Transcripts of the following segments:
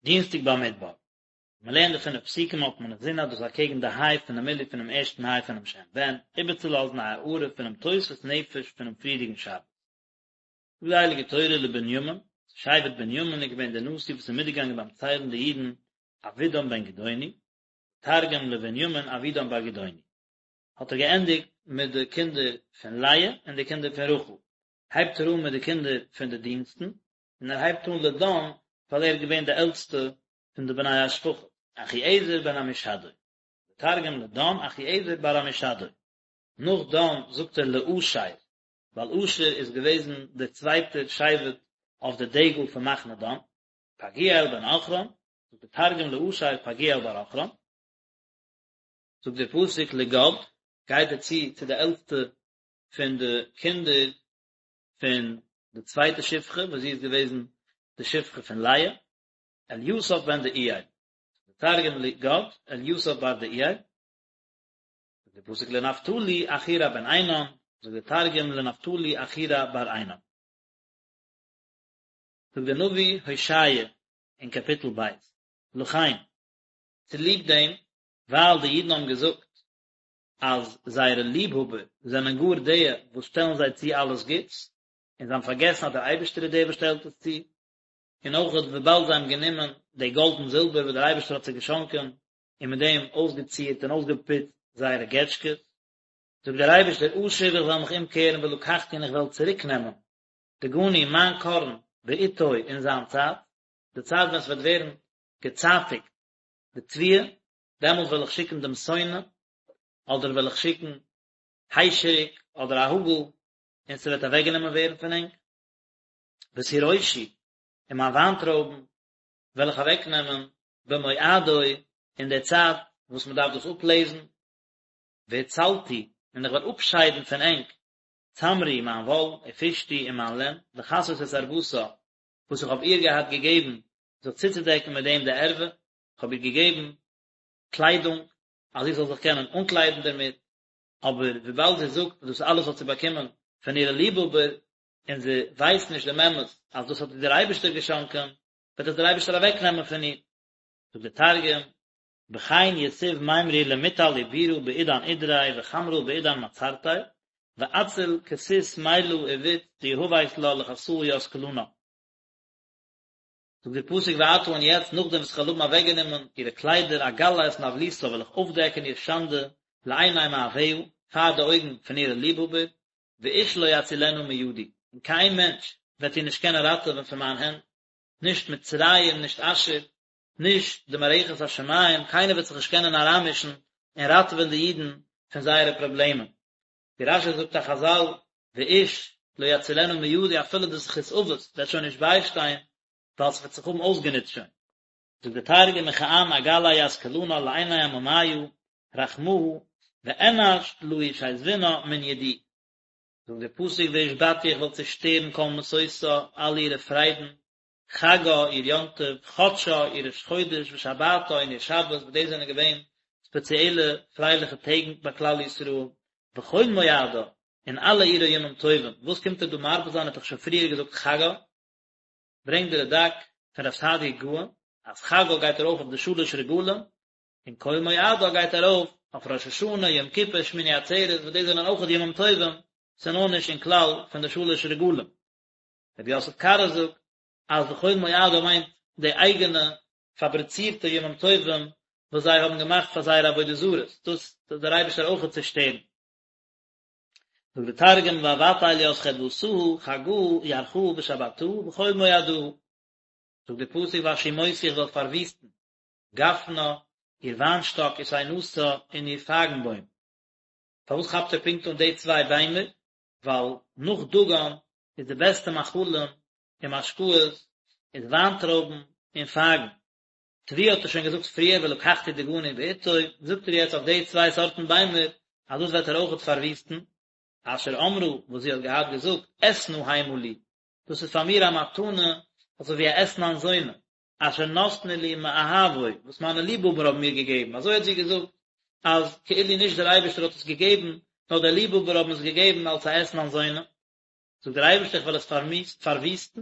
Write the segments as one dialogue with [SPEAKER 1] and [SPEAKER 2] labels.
[SPEAKER 1] דינסטאג במדבר. מען לערנט די פינף פסוקים האט מען אינזין אז דאס איז אקעגן די היי פונעם מילוי פונעם ערשטן היי פונעם שם בן, איבערצולאזן א הארה פונעם תוספות נפש פונעם פריערדיגן שבת. זאגט די הייליגע תורה לבנימין, צו שבט בנימין איז געווען דער נשיא וואס איז מיטגעגאנגען ביים ציילן די אידן אבידן בן גדעוני, תרגום לבנימין אבידן בר גדעוני. האט ער געענדיגט מיט די קינדער פון לאה און די קינדער פון רחל, הייבט ער אן מיט די קינדער פון די דינסטן, און ער הייבט אן לדן ווייל ער איז געווען די עלטסטע פון די בני השפחה. אחיעזר בן עמישדי, תרגום לדן אחיעזר בר עמישדי. נאך דן זאגט ער לאשר, ווייל אשר איז געוועזן דער צווייטער שבט אויף די דגל פון מחנה דן, פגעיאל בן עכרן, זאגט דער תרגום לאשר פגעיאל בר עכרן. זאגט דער פסוק לגד, גייט ער צו צו די עלטסטע פון די קינדער פון די צווייטע שפחה וואס זי איז געוועזן די שפחה פון לאה, אליסף בן דעואל, דער תרגום לגד, אליסף בר דעואל, זאגט דער פסוק לנפתלי אחירע בן עינן, זאגט דער תרגום לנפתלי אחירע בר עינן. זאגט דער נביא הושע אין קאפיטל ב', לכן, צוליב דעם ווייל די אידן האבן געזאגט אז זייערע ליבהאבער זענען גאר די וואס שטעלן זיי צו אלעס גוטס, און זיי האבן פארגעסן אז דער אייבערשטער איז דער וואס שטעלט עס צו, און אויך וויבאלד זיי האבן גענומען די גאלד און זילבער וואס דער אייבערשטער האט זיי געשאנקען, און מיט דעם אויסגעצירט און אויסגעפוצט זייערע געטשקעס. זאגט דער אייבערשטער, אשוב איך וועל מיך אומקערן ולקחתי און איך וועל צוריקנעמען דגני מיין קארן בעתו אין זיין צייט, די צייט ווען עס וועט ווערן געצייטיגט די תבואה, דעמאלט וועל איך שיקן דעם שונא, אדער וועל איך שיקן היישעריק אדער א האגל, און ס'וועט אוועקגענומען ווערן פון ענק. ותירושי, און מיין וויינטרויבן וועל איך אוועקנעמען במועדו, אין דער צייט וואס מען דארף דאס אפלעזן, והצלתי, און איך וועל אפשיידן פון ענק צמרי, מיין וואל, ופשתי, און מיין לען, לכסות את ערותה, וואס איך האב איר געהאט געגעבן זיך צוצודעקן מיט דעם די ערווה, איך האב איר געגעבן קליידונג, אז זי זאל זיך קענען אנקליידן דערמיט, אבער וויבאלד זי זאגט אז דאס אלעס האט זי באקומען פון אירע ליבהאבער, און זי ווייסט נישט דעם אמת אז דאס האט איר דער אייבערשטער געשאנקען, וועט עס דער אייבערשטער אוועקנעמען פון איר. זאגט דער תרגום, בכן יתיב מימרי למטל עיבורא בעידן עידריה וחמרא בעידן מעצרתיה, ואציל כסות מילא עבית דיהבית לה לכסאה ית כלנא. זאגט דער פסוק ועתה און יעצט נאכדעם וואס איך וועל האבן אוועקגענומען אירע קליידער אגלה את נוולתה וועל איך אויפדעקן איר שאנדע לעיני מאהביה פאר די אויגן פון אירע ליבהאבער ואיש לא יצילנה מידי און קיין מענטש וועט איר נישט קענען ראטעווען פון מיין הענט נישט מצרים נישט אשור נישט די מערכת השמים קיינער וועט זיך נישט קענען אריינמישן און ראטעווען די אידן פון זייערע פראבלעמען ווי רש"י זאגט א חז"ל ואיש לא יצילנה מידי אפילו די זכות אבות וועט שוין נישט ביישטיין ווייל ס'וועט זיך האבן אויסגענוצט שוין. זאגט דער תרגום וכען אגלי ית כלנא לעיני עממיא רחמאה ואנש לא ישיזבנה מן ידי. זאגט דער פסוק והשבתי איך וועל צושטערן כל משושה אלע אירע פריידן, חגה איר יום טוב, חדשה איר ראש חודש ושבתה און איר שבת וואס דאס זענען געווען ספעציעלע פרייליכע טעג ביי כלל ישראל, וכל מועדה און אלע אירע ימים טובים, וואס קומט ער דא מרבה זיין ער האט דאך שוין פריער געזאגט חגה, ברענגט די רד"ק פון רב סעדיה גאון אז חגה גייט ארויף אויף די שלש רגלים, און כל מועדה גייט ארויף אויף ראש השנה, יום כיפור, שמיני עצרת, וואס דאס זענען אויך ימים טובים, ס'איז נאר נישט אין כלל פון די שלש רגלים. רבי יוסף קארו זאגט אז וכל מועדה מיינט די אייגענע פאבריצירטע ימים טובים וואס זיי האבן געמאכט פאר זייערע עבודה זרות, דאס טוט דער אייבערשטער אויכעט צושטערן. זאגט די תרגום ואבטל ית חדוותהא חגא ירחא ושבתהא וכל מועדהא. זאגט די פסוק והשמותי איך וועל פארוויסטן גפנה איר וויינשטאק ותאנתה און איר פייגנבוים. פארוואס כאפט ער פונקט אן די צוויי ביימער? ווייל נאך דגן איז די בעסטע מאכלים און משקאות איז וויינטרויבן און פייגן. תבואה האט ער שוין געזאגט פריער ולקחתי דגני בעתו, זאגט ער יעצט אויף די צוויי סארטן ביימער אז דאס וועט ער אויכעט פארוויסטן, אשר אמרה וואס זי האט געהאט געזאגט אתנה המה לי, דאס איז פאר מיר א מתנה אזוי ווי א אתנן זונה, אשר נתנו לי מאהבי, וואס מיינע ליבהאבער האבן מיר געגעבן, אזוי האט זי געזאגט, אז כאילו נישט דער אייבערשטער האט עס געגעבן, נאר די ליבהאבער האבן עס געגעבן אלס א אתנן זונה. זאגט דער אייבערשטער איך וועל עס פארוויסטן,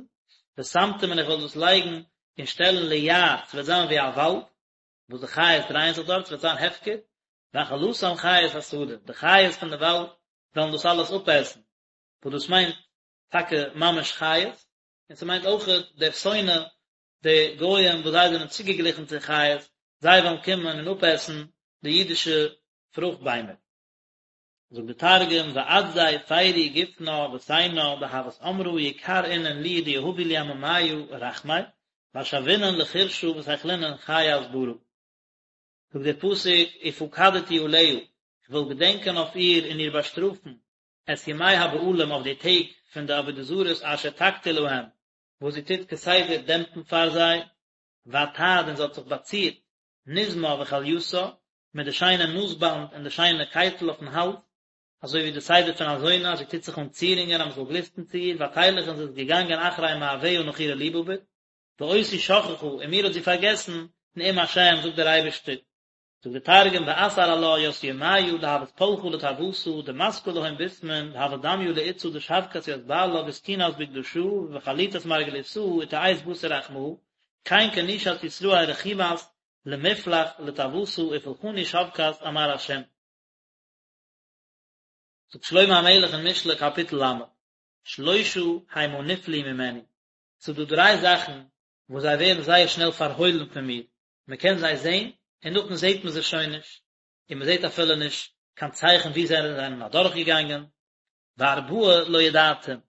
[SPEAKER 1] ושמתים און איך וועל דאס לייגן. און שטעלן ליער, ס'וועט זיין ווי א וואלד, וואס די חיות דרייען זיך דארט, ס'וועט זיין הפקר, ואכלתם חית השדה, די חיות פון די וואלד וועלן דאס אלעס אפעסן, וואס דאס מיינט טאקע ממש חיות, און ס'מיינט אויכעט דער שונא, די גויים וואס זיי זענען צוגעגליכן צו חיות, זיי וועלן קומען און אפעסן די אידישע פרוכט ביימער. זאגט די תרגום, ואתזי פרי גופנא ותיינא דהות אמרה יקר אינון לי דיהבו לי עממיא רחמי, ואשבינון לחורשא ותיכלינון חיית ברא. זאגט דער פסוק, ופקדתי עליה, איך וועל געדענקען אויף איר און איר באשטראפן, את ימי הבעלים אויף די טעג פון די עבודה זרות אשר תקטיר להם, וואס זי טוט כסדר דעמפן פאר זיי, ותעד און זי האט זיך באצירט, נזמה וכליתה, מיט די שיינע נאזבאנד און די שיינע קייטל אויפן האלז, אזוי ווי די סדר פון א זונה אז זי טוט זיך אן צירונגען אז מען זאל גליסטן צו איר, ותלך און זי איז געגאנגען אחרי מאהביה נאך אירע ליבהאבער, ואותי שכחה און מיר האט זי פארגעסן, נאום השם זאגט דער אייבערשטער. זאגט דער תרגום ואתער עלה ית ימיא דהות פלחא לתאותה דמסקא להון בסמין דהות דמיא לאיתתא דשבקת ית בעלה ותקינת בקדשא ובחליטת מרגליתאה ותיעית בתר רחמאה כן כנושת ישראל רחימת למפלח לתאותה ופולחני שבקת אמר השם. זאגט שלמה המלך אין משלי קאפיטל ל', שלושה המה נפלאו ממני, ס'איז דא דריי זאכן וואס זיי ווערן זייער שנעל פארהוילן פון מיר, מען קען זיי זען און נאכדעם זעט מען זיי שוין נישט, און מען זעט אפילו נישט קיין צייכן וואו זיי זענען אדורכגעגאנגען, וארבעה לא ידעתים,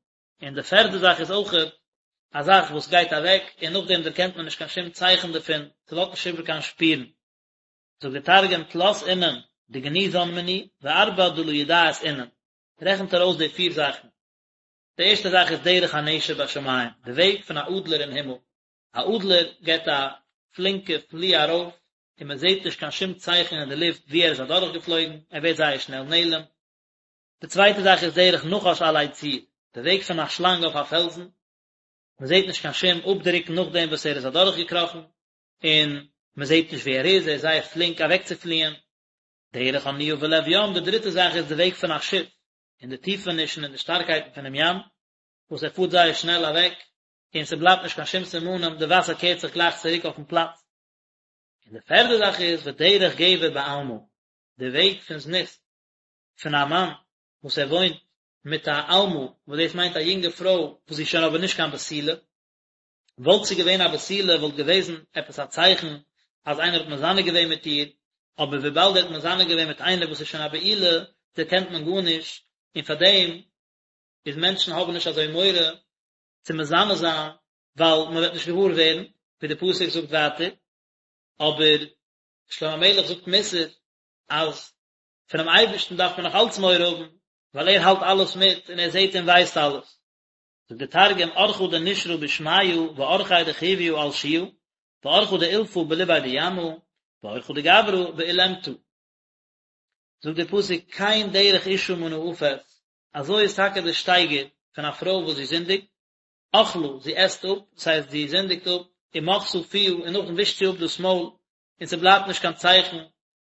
[SPEAKER 1] און די פערדע זאך איז אויכעט א זאך וואס גייט אוועק און נאכדעם דערקענט מען נישט קיין שום צייכן דערפון, ס'לאזט נישט איבער קיין שפירן. זאגט דער תרגום תלת אינון דגניזן מני וארבע דלא ידעית אינון, רעכנט ער אויס די פיר זאכן. די ערשטע זאך איז דרך הנשר בשמים, די וועג פון א אדלער אין הימל. א אדלער געבט א פלינקע פלי ארויף און מען זעט נישט קיין שום צייכן אין די לופט וואו ער איז אדורכגעפלויגן, ער ווערט זייער שנעל נעלם. די צווייטע זאך איז דרך נחש עלי צור, די וועג פון א שלאנג אויף א פעלזן, מען זעט נישט קיין שום אפדרוק נאכדעם וואס ער איז אדורכגעקראכן, און מען זעט נישט וואו ער איז, ער איז זייער פלינק אוועקצופליען. דרך אניה בלב ים, די דריטע זאך איז די וועג פון א שיף אין די טיפענישן און די שטארקייטן פונעם ים, וואס ער פארט זייער שנעל אוועק, און ס'בלייבט נישט קיין שום סימנים, די וואסער קערט זיך גלייך צוריק אויפן פלאץ. און די פערדע זאך איז ודרך גבר בעלמה, די וועג פון זנות פון א מאן וואס ער וואוינט מיט א עלמה, וואס דאס מיינט א יונגע פרוי וואס איז שוין אבער נישט קיין בתולה, וואלט זי געווען א בתולה וואלט געוועזן עפעס א צייכן אז איינער האט מזנה געווען מיט איר, אבער וויבאלד ער האט מזנה געווען מיט איינער וואס איז שוין א בעולה, דערקענט מען גארנישט, און פארדעם איז מענטשן האבן נישט אזוי מורא צו מזנה זיין, ווייל מען וועט נישט געוואר ווערן, ווי די פסוק זאגט ווייטער, אבער שלמה המלך זאגט מוסר אז פונעם אייבערשטן דארף מען נאך אלץ מורא האבן, ווייל ער האלט אלעס מיט און ער זעט און ווייסט אלעס. זאגט דער תרגום, אורחא דנשרא בשמיא ואורחיה דחויא על שיא, ואורחא דאולפא בלביה דימא, ואורחא דגברא בעולמתא. זאגט דער פסוק, כן דרך אשה מנאפת, אזוי איז טאקע דער שטייגער פון א פרוי וואס זי זינדיגט, אכלה, זי עסט אפ, דאס הייסט זי זינדיגט אפ, ומחתה פיה, און נאכדעם ווישט זי אפ דאס מויל, און ס'בלייבט נישט קיין צייכן,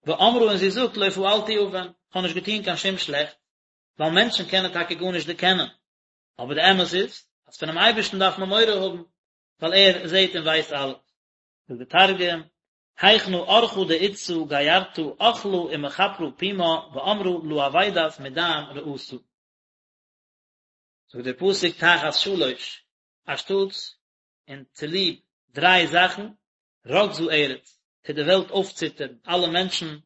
[SPEAKER 1] ואמרה און זי זאגט לא פעלתי און, כ'האב נישט געטון קיין שום שלעכטס, ווייל מענטשן קענען טאקע גארנישט דערקענען, אבער די אמת איז, אז פונעם אייבערשטן דארף מען מורא האבן, ווייל ער זעט און ווייסט אלעס. זאגט די תרגום, היכנא אורחא דאיתתא גירתא אכלה ומכפרא פומה ואמרה לא עבידת מדין רעתא. זאגט דער פסוק תחת שלש, אנשטאטס און צוליב דריי זאכן, רגזה ארץ, טוט די וועלט אויפציטערן, אלע מענטשן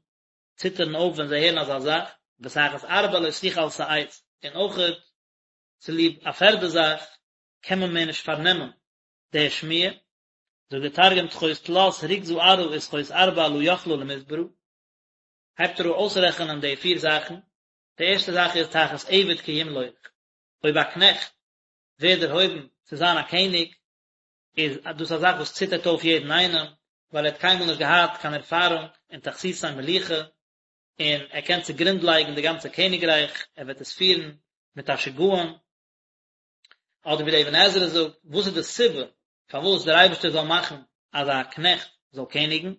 [SPEAKER 1] ציטערן אויף ווען זיי הערן אזא זאך, ותחת ארבע לא תוכל שאת, און אויכעט צוליב א פערדע זאך קען מען מער נישט פארנעמען די שמועה, זאגט דער תרגום תחות תלת רוגזא ארעא ותחות ארבע לא יכלא למסברא, הייבט ער אן אויסרעכענען די פיר זאכן, די ערשטע זאך איז תחת עבד כי ימלוך, אויב א קנעכט ווערט דערהויבן צו זיין א קעניג, איז דאס א זאך וואס ציטערט אויף יעדן איינעם, ווייל ער האט קיינמאל נישט געהאט קיין ערפארונג אין תכסיסי מלוכה, און ער קען צוגרונד לייגן די גאנצע קעניגרייך, ער וועט עס פירן מיט א שגעון. אדער ווי דער אבן עזרא זאגט, וואס איז די סיבה פארוואס דער אייבערשטער זאל מאכן אז א קנעכט זאל קעניגן?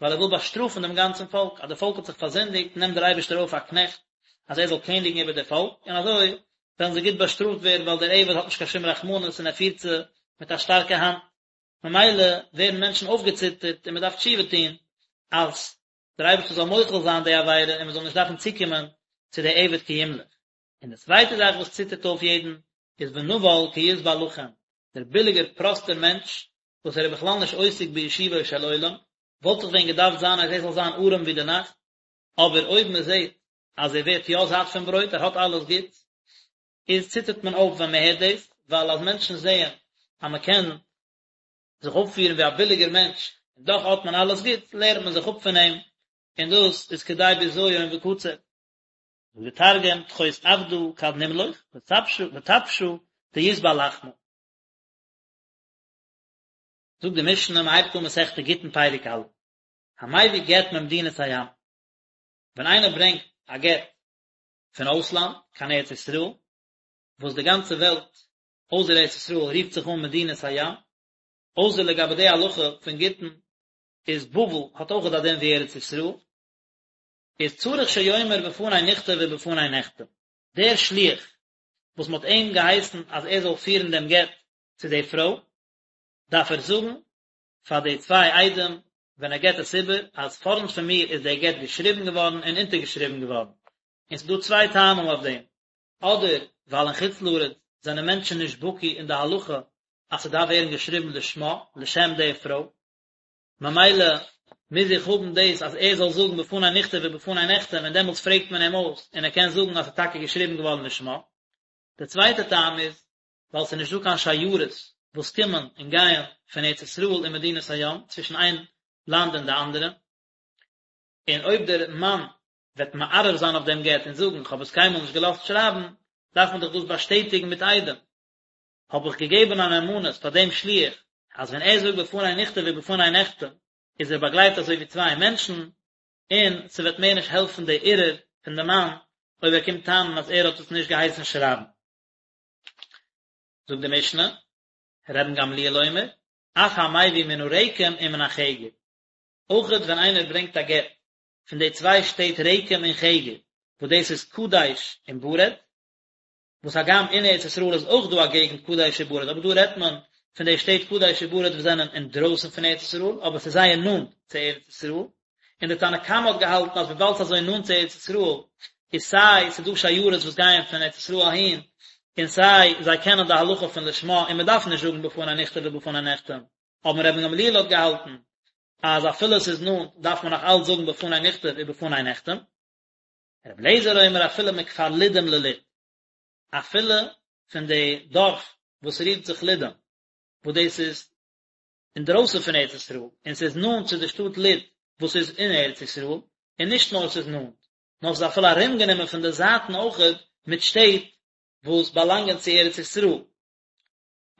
[SPEAKER 1] ווייל ער וויל באשטראפן דעם גאנצן פאלק, אז די פאלק האט זיך פארזינדיגט, נעמט דער אייבערשטער אויף א קנעכט אז ער זאל קעניגן איבער די פאלק, און אזוי וועלן זיי גוט באשטראפט ווערן, ווייל דער עבד האט נישט קיין שום רחמנות און ער פירט זיי מיט א שטארקע האנט. ממילא ווערן מענטשן אויפגעציטערט און מען דארף תשובה טון אז דער אייבערשטער זאל מוחל זיין די עבירה און מען זאל נישט דארפן צוקומען צו די עבד כי ימלוך. און די צווייטע זאך וואס ציטערט אויף יעדן איז ונבל כי ישבע לחם, דער ביליגער פראסטער מענטש וואס ער איז בכלל נישט עוסק בישובו של עולם, וואלט דאך ווען געדארפט זיין אז ער זאל זיין ארעם ווי די נאכט, אבער אויב מען זעט אז ער ווערט יא זאט פון ברויט, ער האט אלעס גוט, איז ציטערט מען אויף ווען מען הערט דאס, ווייל אז מענטשן זעען אז מען קען זיך אויפפירן ווי א ביליגער מענטש און דאך האט מען אלעס גוט, לערנט מען זיך אפ פון אים, און דאס איז כדי בזיון וקצף. זאגט דער תרגום, תחות עבדא כד נמלוך, וטפשא דישבע לחמא. זאגט די משנה, מען הייבט אן מסכת גיטין פרק א', המביא גט ממדינת הים, ווען איינער ברענגט א גט פון אויסלאנד קיין ארץ ישראל, וואס די גאנצע וועלט אויסער ארץ ישראל רופט זיך אן מדינת הים, אויסער לגבי די הלכה פון גיטין איז בבל האט אויכעט א דין ווי ארץ ישראל, איז צריך שיאמר בפני נכתב ובפני נחתם, דער שליח וואס מען האט אים געהייסן אז ער זאל פירן דעם גט צו די פרוי, דארף ער זאגן פאר די צוויי עדים ווען ער געבט עס איבער אז פארנט פון מיר איז דער גט געשריבן געווארן און אונטערגעשריבן געווארן, און ס'איז דא צוויי טעמים אויף דעם, אדער ווייל אין חוץ לארץ זענען מענטשן נישט בקי אין די הלכה אז ס'דארף ווערן געשריבן לשמה, לשם די פרוי, ממילא מוז איך האבן דאס אז ער זאל זאגן בפני נכתב ובפני נחתם און דעמאלטס פרעגט מען אים אויס און ער קען זאגן אז ס'איז טאקע געשריבן געווארן לשמה. די צווייטע טעם איז ווייל ס'איז נישט דא קיין שיירות וואס קומען און גייען פון ארץ ישראל און מדינת הים צווישן איין לאנד און די אנדערע, און אויב דער מאן וועט מערער זיין אויף דעם גט און זאגן כ'האב עס קיינמאל נישט געלאזט שרייבן, דארף מען דאך דאס באשטעטיגן מיט עדים. האב איך געגעבן א נאמנות פאר דעם שליח אז ווען ער זאגט בפני נכתב ובפני נחתם איז ער באגלייבט אזוי ווי צוויי מענטשן, און ס'וועט מער נישט העלפן די ערעור פון די מאן אויב ער קומט טענה'ן אז ער האט עס נישט געהייסן שרייבן. זאגט די משנה, רבן גמליאל אומר, אף המביא מן הרקם ומן החגר, אויכעט ווען איינער ברענגט א גט פון די צוויי שטעט רקם און חגר, וואס דאס איז קדש און ברד, וואס הגם אין ארץ ישראל איז אויך דא א געגנט קדש וברד, אבער דא רעדט מען פון די שטעט קדש וברד וואס זענען אינדרויסן פון ארץ ישראל, אבער ס'איז זייער נאנט צו ארץ ישראל, און די תנא קמא האט געהאלטן אז וויבאלד ס'איז אזוי נאנט צו ארץ ישראל, איז סיי ס'איז דא שיירות וואס גייען פון ארץ ישראל אהין, און סיי זיי קענען די הלכה פון לשמה און מ'דארף נישט זאגן בפני נכתב ובפני נחתם, אבער רבן גמליאל האט געהאלטן אז אפילו ס'איז נאנט דארף מען נאך אלץ זאגן בפני נכתב ובפני נחתם. רבי אליעזר אומר אפילו מכפר לודים ללוד, אפילו פון די דארף וואס רופט זיך לודים, וואס דאס איז אינדרויסן פון ארץ ישראל, און ס'איז נאנט צו די שטאט לוד וואס איז אין ארץ ישראל, און נישט נאר ס'איז נאנט, נאר ס'איז אפילו ארומגענומען פון די זייטן אויכעט מיט שטעט וואס באלאנגען צו ארץ ישראל.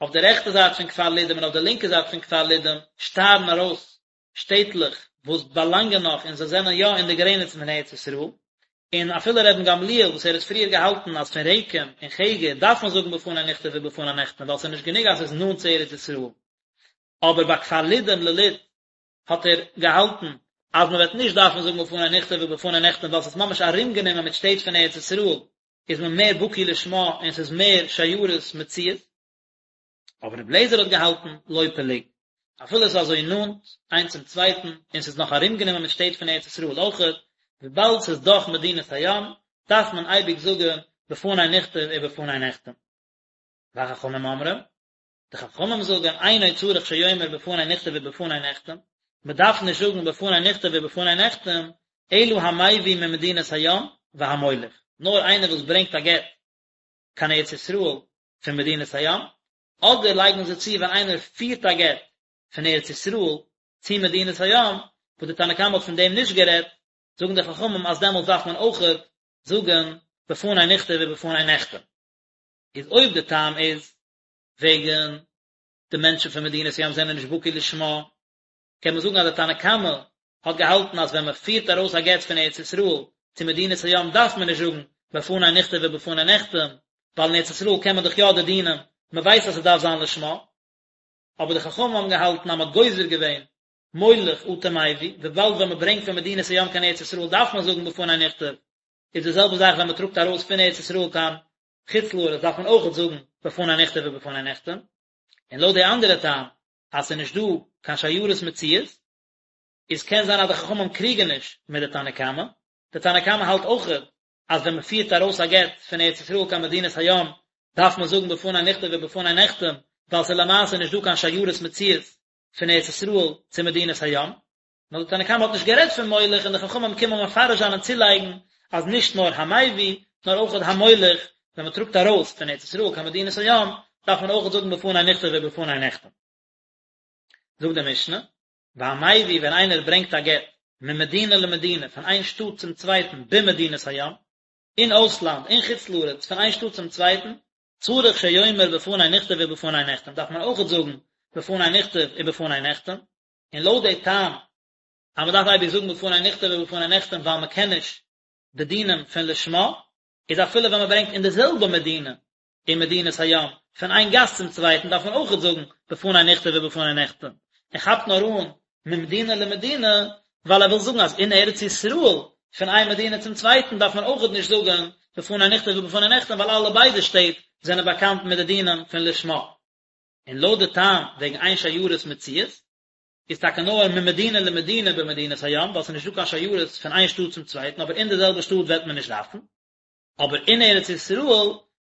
[SPEAKER 1] אויף די רעכטע זייט פון כפר לודים און אויף די לינקע זייט פון כפר לודים שטארן ארויס שטעטלעך וואס באלאנגען נאך און זיי זענען יא אין די גרעניצן פון ארץ ישראל, און אפילו רבן גמליאל וואס ער האט פריער געהאלטן אז פון רקם און חגר דארף מען זאגן בפני נכתב ובפני נחתם ווייל ס'איז נישט גענוג אז ס'איז נאנט צו ארץ ישראל, אבער ביי כפר לודים ללוד האט ער געהאלטן אז מען וועט נישט דארפן זאגן בפני נכתב ובפני נחתם ווייל ס'איז ממש ארומגענומען מיט שטעט פון ארץ ישראל איז מען מער בקי לשמה און ס'איז מער שיירות מצויות. אבער רבי אליעזר האט געהאלטן לא פלוג, אפילו עס איז אזוי נאנט איינס צום צווייטן און ס'איז נאך ארומגענומען מיט שטעט פון ארץ ישראל אויכעט, וויבאלד ס'איז דאך מדינת הים, דארף מען אייביג זאגן בפני נכתב ובפני נחתם. וחכמים אומרים, די חכמים זאגן אינו צריך שיאמר בפני נכתב ובפני נחתם, מען דארף נישט זאגן בפני נכתב ובפני נחתם, אלא המביא ממדינת הים והמוליך, נאר איינער וואס ברענגט א גט קיין ארץ ישראל פון מדינת הים, אדער לייגן זיי צו ווען איינער פירט א גט פון ארץ ישראל צו מדינת הים, וואס די תנא קמא האט פון דעם נישט גערעדט, זאגן די חכמים אז דעמאלטס דארף מען אויכעט זאגן בפני נכתב ובפני נחתם. איז אויב די טעם איז וועגן די מענטשן פון מדינת הים זענען נישט בקי לשמה, קען מען זאגן אז די תנא קמא האט געהאלטן אז ווען מען פירט ארויס א גט פון ארץ ישראל צו מדינת הים דארף מען נישט זאגן בפני נכתב ובפני נחתם, ווייל אין ארץ ישראל קען מען דאך יא די דינים, מען ווייסט אז ס'דארף זיין לשמה. אבער די חכמים האבן געהאלטן אז מען האט גוזר געווען מוליך אטו מביא, וויבאלד ווען מען ברענגט פון מדינת הים קיין ארץ ישראל דארף מען זאגן בפני נכתב, איז די זעלבע זאך ווען מען טראגט ארויס פון ארץ ישראל קיין חוץ לארץ דארף מען אויכעט זאגן בפני נכתב ובפני נחתם, און לויט די אנדערע טעם. אז ס'איז נישט דא קיין שיירות מצויות, איז קען זיין אז די חכמים קריגן נישט מיט די תנא קמא, די תנא קמא האלט אויכעט אז ווען מ'פירט ארויס א גט פון ארץ ישראל קיין מדינת הים דארף מען זאגן בפני נכתב ובפני נחתם, ווייל ס'איז למעשה נישט דא קיין שיירות מצויות פון ארץ ישראל צו מדינת הים. נאר די תנא קמא האט נישט גערעדט פון מוליך און די חכמים קומען מפרש זיין און צולייגן אז נישט נאר המביא נאר אויך המוליך, ווען מען טראגט ארויס פון ארץ ישראל קיין מדינת הים דארף מען אויך זאגן בפני נכתב ובפני נחתם. זאגט די משנה, והמביא ווען איינער ברענגט א גט ממדינה למדינה פון איין שטאט צום צווייטן במדינת הים, אין אויסלאנד, אין חוץ לארץ, פון איין שטאט צום צווייטן, צריך שיאמר בפני נכתב ובפני נחתם דארף מען אויכעט זאגן בפני נכתב ובפני נחתם, און לויט די טעם אז מען דארף אייביג זאגן בפני נכתב ובפני נחתם ווייל מען קען נישט די דינים פון לשמה, איז אפילו ווען מען ברענגט אין די זעלבע מדינה אין מדינת הים פון איין גאס צום צווייטן דארף מען אויכעט זאגן בפני נכתב ובפני נחתם, ער כאפט נאר אן ממדינה למדינה ווייל ער וויל זאגן אז אין ארץ ישראל פון איין מדינה צום צווייטן דארף מען אויכעט נישט זאגן בפני נכתב ובפני נחתם ווייל אלע ביידע שטעט זענען באקאנט מיט די דינים פון לשמה. און לויט די טעם וועגן אין שיירות מצויות, איז טאקע נאר ממדינה למדינה במדינת הים, ווייל ס'איז נישט דא קיין שיירות פון איין שטאט צום צווייטן, אבער אין די זעלבע שטאט וועט מען נישט דארפן. אבער אין ארץ ישראל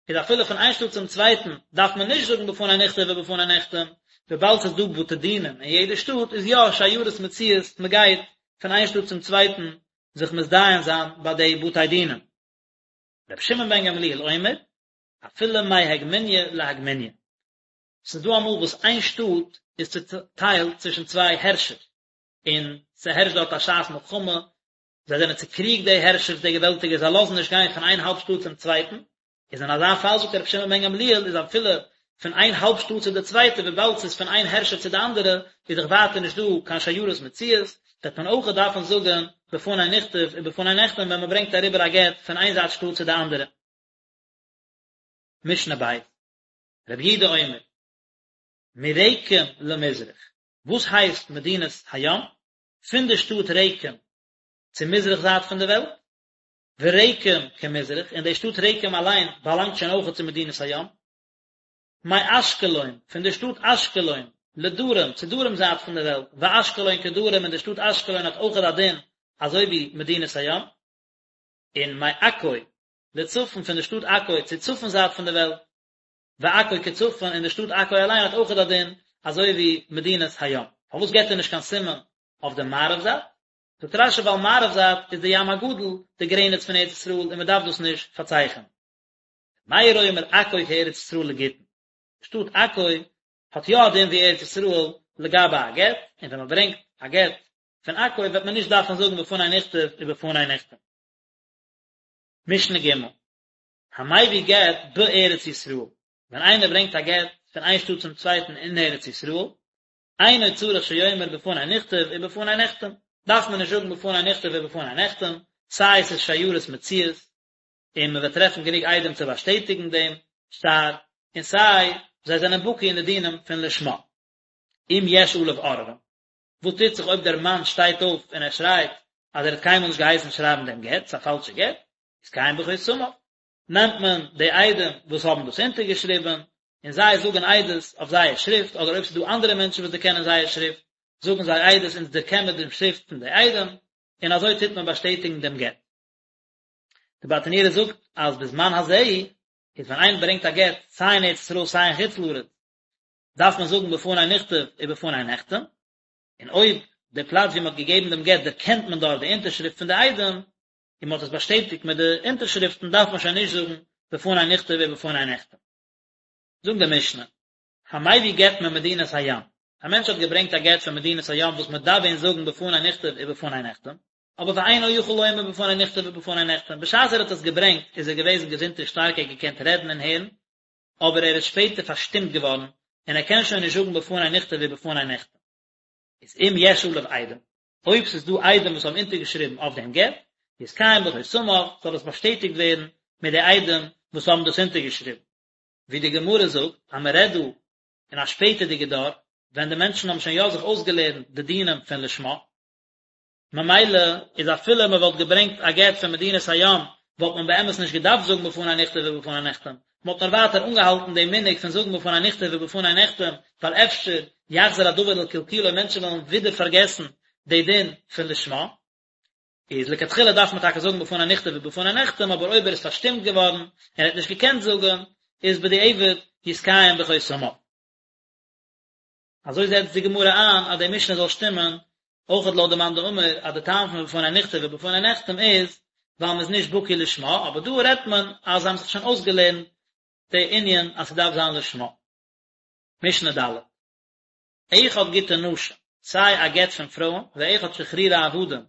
[SPEAKER 1] איז אפילו פון איין שטאט צום צווייטן דארף מען נישט זאגן בפני נכתב ובפני נחתם, וויבאלד ס'איז דא בתי דינים אין יעדע שטאט איז יא שיירות מצויות, מ'גייט פון איין שטאט צום צווייטן זיך מתדיין זיין ביי די בתי דינים. רבי שמעון בן גמליאל אומר, אפילו מהגמוניא להגמוניא. ס'איז דא אמאל וואס איין שטאט איז צוטיילט צווישן צוויי הערשער, און ס'הערשט דארט א שעת מלחמה, זיי זענען צוקריגט די הערשערס די געוועלטיגער, זיי לאזן נישט גיין פון איין האלב שטאט צום צווייטן, איז אין אזא פאל זאגט רבי שמעון בן גמליאל איז אפילו פון איין האלב שטאט צו די צווייטע וויבאלד ס'איז פון איין הערשער צו די אנדערע איז דאך ווייטער נישט דא קיין שיירות מצויות, וועט מען אויכעט דארפן זאגן בפני נכתב ובפני נחתם ווען מ'ברענגט אריבער א גט פון איין זייט שטאט צו די אנדערע. משנה ב', רבי יהודה אומר, מרקם למזרח, וואס הייסט מדינת הים? פון די שטאט רקם צו מזרח זייט פון די וועלט, ורקם כמזרח, און די שטאט רקם אליין באלאנגט שוין אויכעט צו מדינת הים. מאשקלון, פון די שטאט אשקלון, לדרום, צו דרום זייט פון די וועלט, ואשקלון כדרום, און די שטאט אשקלון האט אויכעט א דין אזוי ווי מדינת הים. און מעכו, לצפון, פון די שטאט עכו צו צפון זייט פון די וועלט, ועכו כצפון, און די שטאט עכו אליין האט אויכעט א דין אזוי ווי מדינת הים. פארוואס געבט ער נישט קיין סימן אויף די מערב זייט? זאגט רש"י ווייל מערב זייט איז די ים הגדול די גרעניץ פון ארץ ישראל און מען דארף דאס נישט פארצייכענען. ר' מאיר אומר עכו כארץ ישראל לגיטין. די שטאט עכו האט יא א דין ווי ארץ ישראל לגבי א גט, און ווען מען ברענגט א גט פון עכו וועט מען נישט דארפן זאגן בפני נכתב ובפני נחתם. משנה ג' המביא גט בארץ ישראל, ווען איינער ברענגט א גט פון איין שטאט צום צווייטן אין ארץ ישראל, אינו צריך שיאמר בפני נכתב ובפני נחתם, דארף מען נישט זאגן בפני נכתב ובפני נחתם, סיי עס איז שיירות מצויות, און מען וועט טרעפן גענוג עדים צו באשטעטיגן דעם שטר, און סיי זיי זענען בקי אין די דינים פון לשמה. אם יש עליו עוררין, וואס טוט זיך אויב דער מאן שטייט אויף און ער שרייט אז ער האט קיינמאל נישט געהייסן שרייבן דעם גט, ס'איז א פאלשע גט, יתקיים בחותמיו, נעמט מען די עדים וואס האבן דאס אונטערגעשריבן, און זיי זאגן עדות אויף זייער שריפט, אדער אויב ס'איז דא אנדערע מענטשן וואס דערקענען זייער שריפט, זאגן זיי עדות אונז דערקען מיר דעם שריפט פון די עדים, און אזוי טוט מען באשטעטיגן דעם גט. די ברטנורא זאגט אז בזמן הזה, איז ווען איינער ברענגט א גט סיי אין ארץ ישראל סיי אין חוץ לארץ, דארף מען זאגן בפני נכתב ובפני נחתם, און אויב די פלאץ ווי מען האט געגעבן דעם גט דערקענט מען דארט די אונטערשריפט פון די עדים, און מען האט עס באשטעטיגט מיט די אונטערשריפטן דארף מען שוין נישט זאגן בפני נכתב ובפני נחתם. זאגט די משנה, המביא גט ממדינת הים, א מענטש האט געברענגט א גט פון מדינת הים וואס מען דארף ווען זאגן בפני נכתב ובפני נחתם, אבער ואינו יכול לומר בפני נכתב ובפני נחתם, בשעת ער האט עס געברענגט איז ער געוועזן געזונט און שטארק ער האט געקענט רעדן און הערן, אבער ער איז שפעטער פארשטומט געווארן און ער קען שוין נישט זאגן בפני נכתב ובפני נחתם. איז אם יש עליו עדים, אויב ס'איז דא עדים וואס האבן אונטערגעשריבן אויף דעם גט, יתקיים בחותמיו, זאל עס באשטעטיגט ווערן מיט די עדים וואס האבן דאס אונטערגעשריבן. ווי די גמרא זאגט אז מען רעדט דא אין א שפעטערדיגע דור, ווען די מענטשן האבן שוין יא זיך אויסגעלערנט די דינים פון לשמה, ממילא איז אפילו מען וואלט געברענגט א גט פון מדינת הים וואלט מען באמת נישט געדארפט זאגן בפני נכתב ובפני נחתם, מען האט נאר ווייטער אנגעהאלטן דעם מנהג פון זאגן בפני נכתב ובפני נחתם, ווייל אפשר. יחזור הדבר לקלקולו מענטשן וועלן ווידער פארגעסן די דין פון לשמה, איז לכתחילה דארף מען טאקע זאגן בפני נכתב ובפני נחתם אבער אויב ער איז פארשטומט געווארן און ער האט נישט געקענט זאגן איז בדיעבד יתקיים בחותמיו. אזוי זעצט די גמרא איין אז די משנה זאל שטימען אויכעט לויט די מאן דאמר אז די טעם פון בפני נכתב ובפני נחתם איז ווייל מ'איז נישט בקי לשמה, אבער דא רעדט מען אז זיי האבן זיך שוין אויסגעלערנט די ענין אז ס'דארף זיין לשמה. משנה ד'. אחד גיטי נשים, סיי א גט פון פרויען, ואחד שחרורי עבדים,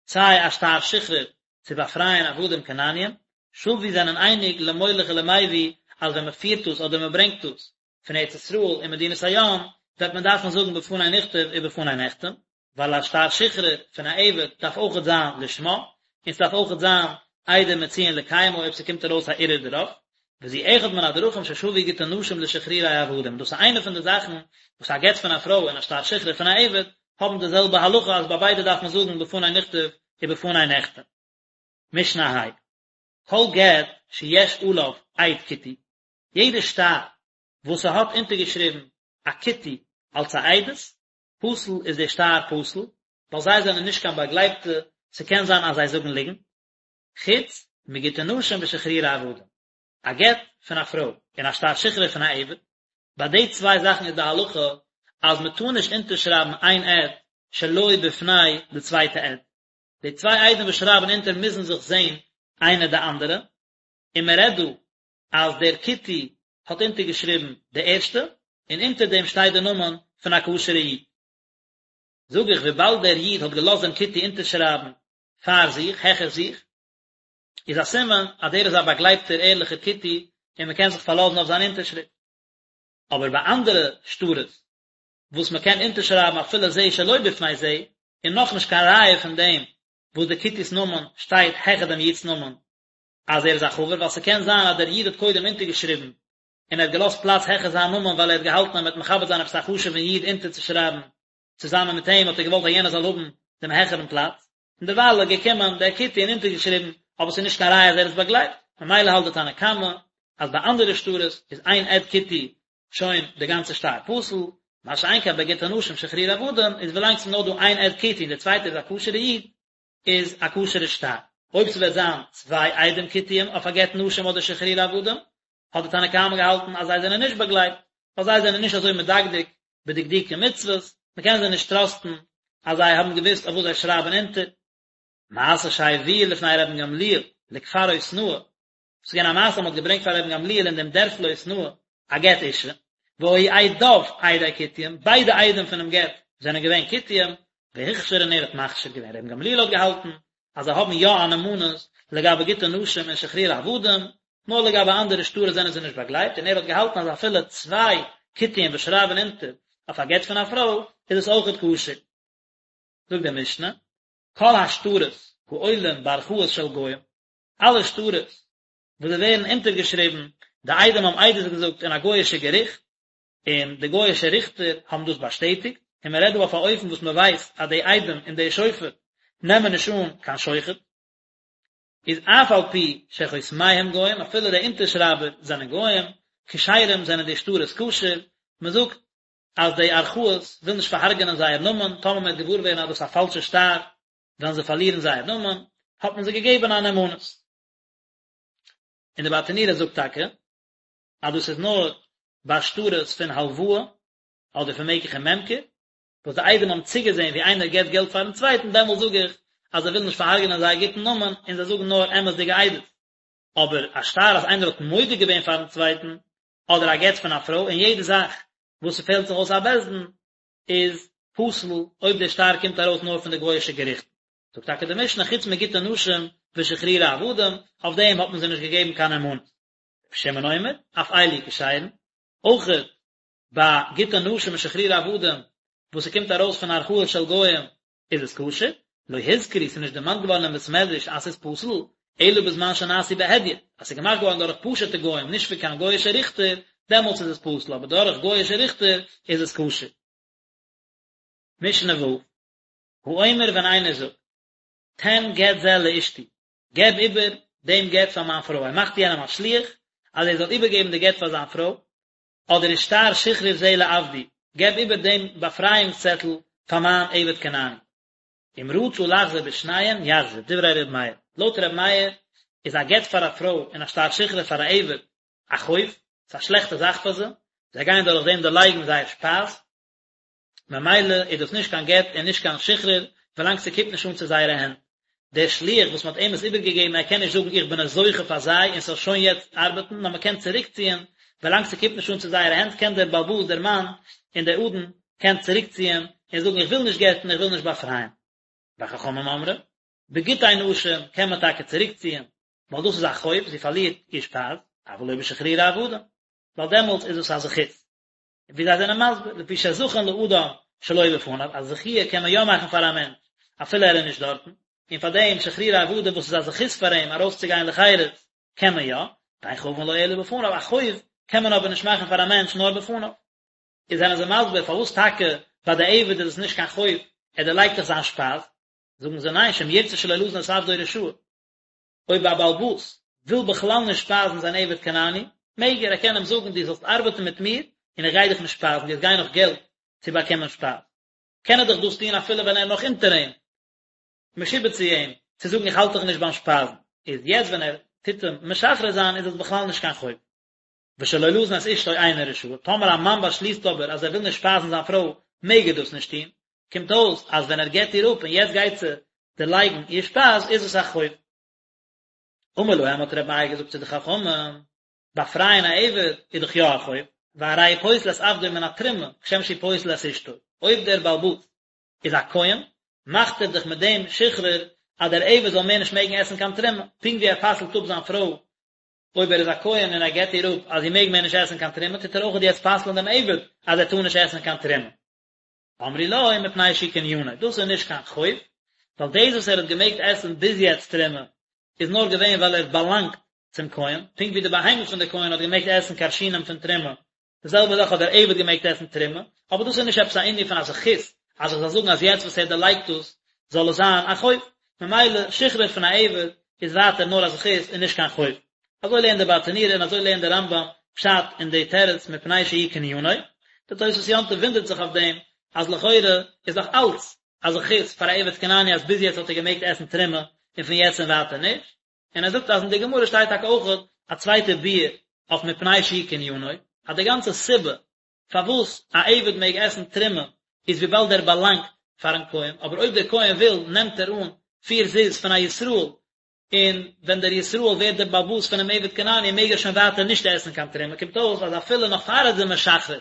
[SPEAKER 1] סיי א שטר שחרור צו באפרייען עבדים כנעניים, שוו זענען אייניג למוליך ולמביא אז ווען מ'פירט דאס אדער מ'ברענגט דאס פון ארץ ישראל אין מדינת הים וועט מען דארפן זאגן בפני נכתב ובפני נחתם, ווייל א שטר שחרור פון א עבד דארף אויכעט זיין לשמה, און ס'דארף אויכעט זיין עדים מצויין לקיימו אויב ס'קומט ארויס א ערעור דערויף, וזו אחד מן הדרכים ששוו גיטי נשים לשחרורי עבדים, דאס איז איינע פון די זאכן וואס א גט פון א פרוי און א שטר שחרור פון א עבד האבן די זעלבע הלכה אז ביי ביידע דארף מען זאגן בפני נכתב ובפני נחתם. משנה ה'. כל גט שיש עליו עד כותי, יעדע שטר וואס ס'האט אונטערגעשריבן א כותי אלס א עדות, פסול איז דער שטר פסול, ווייל זיי זענען נישט קיין באגלייבטע, ס'קען זיין אז זיי זאגן ליגנט, חוץ מגיטי נשים ושחרורי עבדים, א גט פון א פרוי און א שטר שחרור פון א עבד, ביי די צוויי זאכן איז די הלכה אז מ'טאר נישט אונטערשרייבן איין עד שלא בפני די צווייטע עד, די צוויי עדים וואס שרייבן אונטער מוזן זיך זען איינער די אנדערע, און מ'רעדט דא אז דער כותי האט אונטערגעשריבן די ערשטע, און אונטער דעם שטייט די נאמען פון א כשר'ע איד. זאג איך, וויבאלד דער איד האט געלאזט דעם כותי אונטערשרייבן פאר זיך, העכער זיך, איז א סימן אז דער איז א באגלייבטער ערליכער כותי און מען קען זיך פארלאזן אויף זיין אונטערשריפט. אבער ביי אנדערע שטרות וואס מען קען אונטערשרייבן אפילו זה שלא בפני זה, איז נאכנישט קיין ראיה פון דעם וואס דער כותי'ס נאמען שטייט העכער דעם איד'ס נאמען, אז ער איז א חבר, ווייל ס'קען זיין אז דער איד האט קודם אונטערגעשריבן און ער האט געלאזט פלאץ העכער זיין נאמען ווייל ער האט געהאלטן אז מ'וועט מכבד זיין עפעס א חשוב'ן איד אונטערצושרייבן צוזאמען מיט אים האט ער געוואלט אז יענער זאל האבן דעם העכערן פלאץ, און דערווייל איז געקומען דער כותי און אונטערגעשריבן, אבער ס'איז נישט קיין ראיה אז ער איז באגלייבט, ממילא האלט די תנא קמא אז ביי אנדערע שטרות איז איין עד כותי שוין די גאנצע שטר פסול, מה שאין כן ביי גיטי נשים שחרורי עבדים איז ווילאנג ס'איז נאר דא איין עד כותי און דער צווייטער איז א כשר'ע איד, איז א כשר'ע שטר. אויב ס'וועט זיין צוויי עדים כותיים אויף א גט נשים אדער שחרורי עבדים, האט די תנא קמא געהאלטן אז זיי זענען נישט באגלייבט, ווייל זיי זענען נישט אזוי מדקדק בדקדוקי מצוות, מ'קען זיי נישט טראסטן אז זיי האבן געוואוסט אויף וואס זיי שרייבן אונטער. מעשה שהביאו לפני רבן גמליאל לכפר עותנאי, ס'איז געווען א מעשה אז מ'האט געברענגט פאר רבן גמליאל אין דעם דערפל עותנאי א גט אשה, והיו עדיו עדי כותים, ביידע עדים פונעם גט זענען געווען כותים, והכשיר און ער האט מכשיר געווען, רבן גמליאל האט געהאלטן אז זיי האבן יא א נאמנות לגבי גיטי נשים און שחרורי עבדים, נאר לגבי אנדערע שטרות זענען זיי נישט באגלייבט, און ער האט געהאלטן אז אפילו צוויי כותים וואס שרייבן אונטער אויף א גט פון א פרוי איז עס אויכעט כשר. זאגט די משנה, כל השטרות העולים בערכאות של גוים, אלע שטרות וואס זיי ווערן אונטערגעשריבן, די עדים האבן עדות געזאגט אין א גוי'אישע געריכט, און די גוי'אישע ריכטער האבן דאס באשטעטיגט, און מען רעדט דא אויף א אופן וואס מען ווייסט אז די עדים און די שופט נעמען נישט אן קיין שוחד, איז אף על פי שחותמיהם גוים, אפילו די אונטערשרייבער זענען גוים, כשרים זענען די שטרות כשר, מען זאגט אז די ערכאות ווילן נישט פארהארגענען זייער נאמען, טאמער מען וועט געוואר ווערן אז דאס איז א פאלשע שטר, וועלן זיי פארלירן זייער נאמען, האט מען זיי געגעבן א נאמנות. און די ברטנורא זאגט טאקע אז דאס איז נאר ביי שטרות פון הלוואה אדער פון מקח און ממכר, וואס די עדים האבן צוגעזען ווי איינער געבט געלט פארן צווייטן, דעמאלט זאג איך אז זיי ווילן נישט פארהארגענען זייער גוטן נאמען און זיי זאגן נאר אמת'דיגע עדות. אבער א שטר אז איינער האט מודה געווען פארן צווייטן, אדער א גט פון א פרוי, און יעדע זאך וואס ס'פעלט זיך אויס א בית דין, איז פסול אויב דער שטר קומט ארויס נאר פון די גוי'אישע געריכטן. זאגט טאקע די משנה חוץ מגיטי נשים ושחרורי עבדים, אויף דעם האט מען זיי נישט געגעבן קיין נאמנות. רבי שמעון אומר, אף אלו כשרין, אויכעט ביי גיטי נשים און שחרורי עבדים וואס ס'קומט ארויס פון ערכאות של גוים איז עס כשר, לא הוזכרו ס'איז נישט דערמאנט געווארן אין בית מדרש אז ס'איז פסול, אלא בזמן שנעשו בהדיוט, אז ס'איז געמאכט געווארן דורך פשוט'ע גוים נישט פון קיין גוי'אישע ריכטער, דעמאלטס איז עס פסול, אבער דורך גוי'אישע ריכטער איז עס כשר. משנה ו', האומר ווען איינער זאגט, תן גט זה לאשתי, געב איבער דעם גט פאר מיין פרוי, ער מאכט יענעם א שליח אז ער זאל איבערגעבן די גט פאר זיין פרוי, אדער ושטר שחרור זה לעבדי, געב איבער דעם באפרייאונגס צעטל פאר מיין עבד כנעני. אם רצה לחזור בשניהם יחזיר, דברי ר' מאיר. לויט ר' מאיר איז א גט פאר א פרוי און א שטר שחרור פאר א עבד א חוב, ס'איז א שלעכטע זאך פאר זיי, זיי גייען דורך דעם דערלייגן זייער שפייז, ממילא איז דאס נישט קיין גט און נישט קיין שחרור ווילאנג ס'קומט נישט אן צו זייערע הענט. דער שליח וואס מ'האט אים עס איבערגעגעבן ער קען נישט זאגן איך בין עס זוכה פאר זיי און ס'זאל שוין יעצט ארבעטן נאר מ'קען צוריקציען ווילאנג ס'קומט נישט אן צו זייערע הענט קען דער בעל הבית דער מאן און דער אדון קען צוריקציען און זאגן איך וויל נישט גט'ן איך וויל נישט באפרייען. וחכמים אומרים, בגיטי נשים קען מען טאקע צוריקציען ווייל דאס איז א חוב זי פארלירט איר שפייז, אבל לא בשחרורי עבדים ווייל דעמאלטס איז עס א זכות. ווי זיי זענען מסביר, לפי שזכין לאדם שלא בפניו, א זכיה קען מען יא מאכן פאר א מענטש אפילו ער איז נישט דארטן, און פאר דעם שחרורי עבדים וואס איז א זכות פאר אים ארויסצוגיין לחירות קען מען יא, ואין חבין לו אלא בפניו, א חוב קען מען אבער נישט מאכן פאר א מענטש נאר בפניו. איז זענען זיי מסביר פארוואס טאקע ביי די עבד איז עס נישט קיין חוב, ער דערלייגט דאך זיין שפייז, זאגן זיי ניין שאם ירצה שלא לזון את עבדו רשאי, אויב א בעל הבית וויל בכלל נישט שפייזן זיין עבד כנעני, מעג ער, ער קען אים זאגן דו זאלסט ארבעטן מיט מיר און איך גיי דיך נישט שפייזן, דו וועסט גיין נאך געלט צו באקומען שפייז. קען ער דאך דאס טון אפילו ווען ער איז נאך אונטער אים, משועבד צו אים, צו זאגן איך האלט דיך נישט ביים שפייזן. איז יעצט ווען ער טוט אים משחרר זיין איז עס בכלל נישט קיין חוב. ושלא לזון את אשתו אינו רשאי, טאמער א מאן באשליסט אבער אז ער וויל נישט שפייזן זיין פרוי, מעג ער דאס נישט טון, קומט אויס אז ווען ער גט איר אפ און יעצט גייט זי דערלייגן איר שפייז איז עס א חוב. אמר להם האט רבי מאיר געזאגט צו די חכמים, באפרייען א עבד איז דאך יא א חוב, והרי הוא פוסל את עבדו מן התרומה כשם שהוא פוסל את אשתו, אויב דער בעל הבית איז א כהן, מאכט ער דאך מיט דעם שחרור אז דער עבד זאל מער נישט מעגן עסן קיין תרומה, פונקט ווי ער פסל'ט אפ זיין פרוי אויב ער איז א כהן און ער גט איר אפ אז זי מעג מער נישט עסן קיין תרומה, טוט ער אויכעט יעצט פסל'ן דעם עבד אז ער טאר נישט עסן קיין תרומה. אמרו לו מפני שהוא קנינו, דאס איז נישט קיין חוב, ווייל דאס וואס ער האט געמעגט עסן ביז יעצט תרומה איז נאר געווען ווייל ער האט באלאנגט צום כהן, פונקט ווי די בהמה פון די כהן האט געמעגט עסן כרשינים פון תרומה, די זעלבע זאך האט דער עבד געמעגט עסן תרומה, אבער דאס איז נישט עפעס א ענין פון א זכות, אז איך זאל זאגן אז יעצט וואס ער דערלייגט דאס זאל עס זיין א חוב, ממילא שחרור פון א עבד איז ווייטער נאר א זכות און נישט קיין חוב. אזוי לערנט דער ברטנורא און אזוי לערנט דער רמב"ם פשט אין די תירוץ מפני שהוא קנינו. דער תוספות יום טוב וואונדערט זיך אויף דעם אז לכאורה איז דאך אלץ א זכות פאר א עבד כנעני אז ביז יעצט האט ער געמעגט עסן תרומה און פון יעצט און ווייטער נישט, און ער זאגט אז אין די גמרא שטייט טאקע אויך א צווייטע ביאור אויף מפני שהוא קנינו, אז די גאנצע סיבה פארוואס א עבד מעג עסן תרומה איז וויבאלד ער באלאנגט פארן כהן, אבער אויב דער כהן וויל נעמט ער אן פיר זוז פון א ישראל, און ווען דער ישראל ווערט דער בעל הבית פונעם עבד כנעני מעג ער שוין ווייטער נישט עסן קיין תרומה, קומט אויס אז אפילו נאך פאר ער איז אים משחרר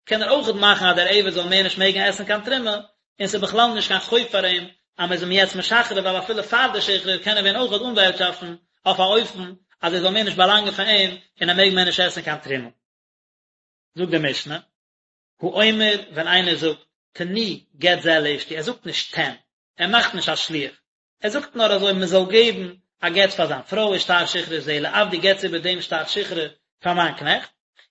[SPEAKER 1] קען ער אויכעט מאכן אז דער עבד זאל מער נישט מעגן עסן קיין תרומה, און ס'איז בכלל נישט קיין חוב פאר אים אז מ'איז אים יעצט משחרר ווייל אפילו פאר די שחרור קען ער ווען אויכעט אנווערטשאפטן אויף א אופן אז ער זאל מער נישט באלאנגען פאר אים און ער מעג מער נישט עסן קיין תרומה. זאגט די משנה, האומר ווען איינער זאגט תנו גט זה לאשתי, ער זאגט נישט תן, ער מאכט נישט א שליח, ער זאגט נאר אזוי מען זאל געבן א גט פאר זיין פרוי ושטר שחרור זה לעבדי געטס איבער דעם שטר שחרור פאר מיין קנעכט,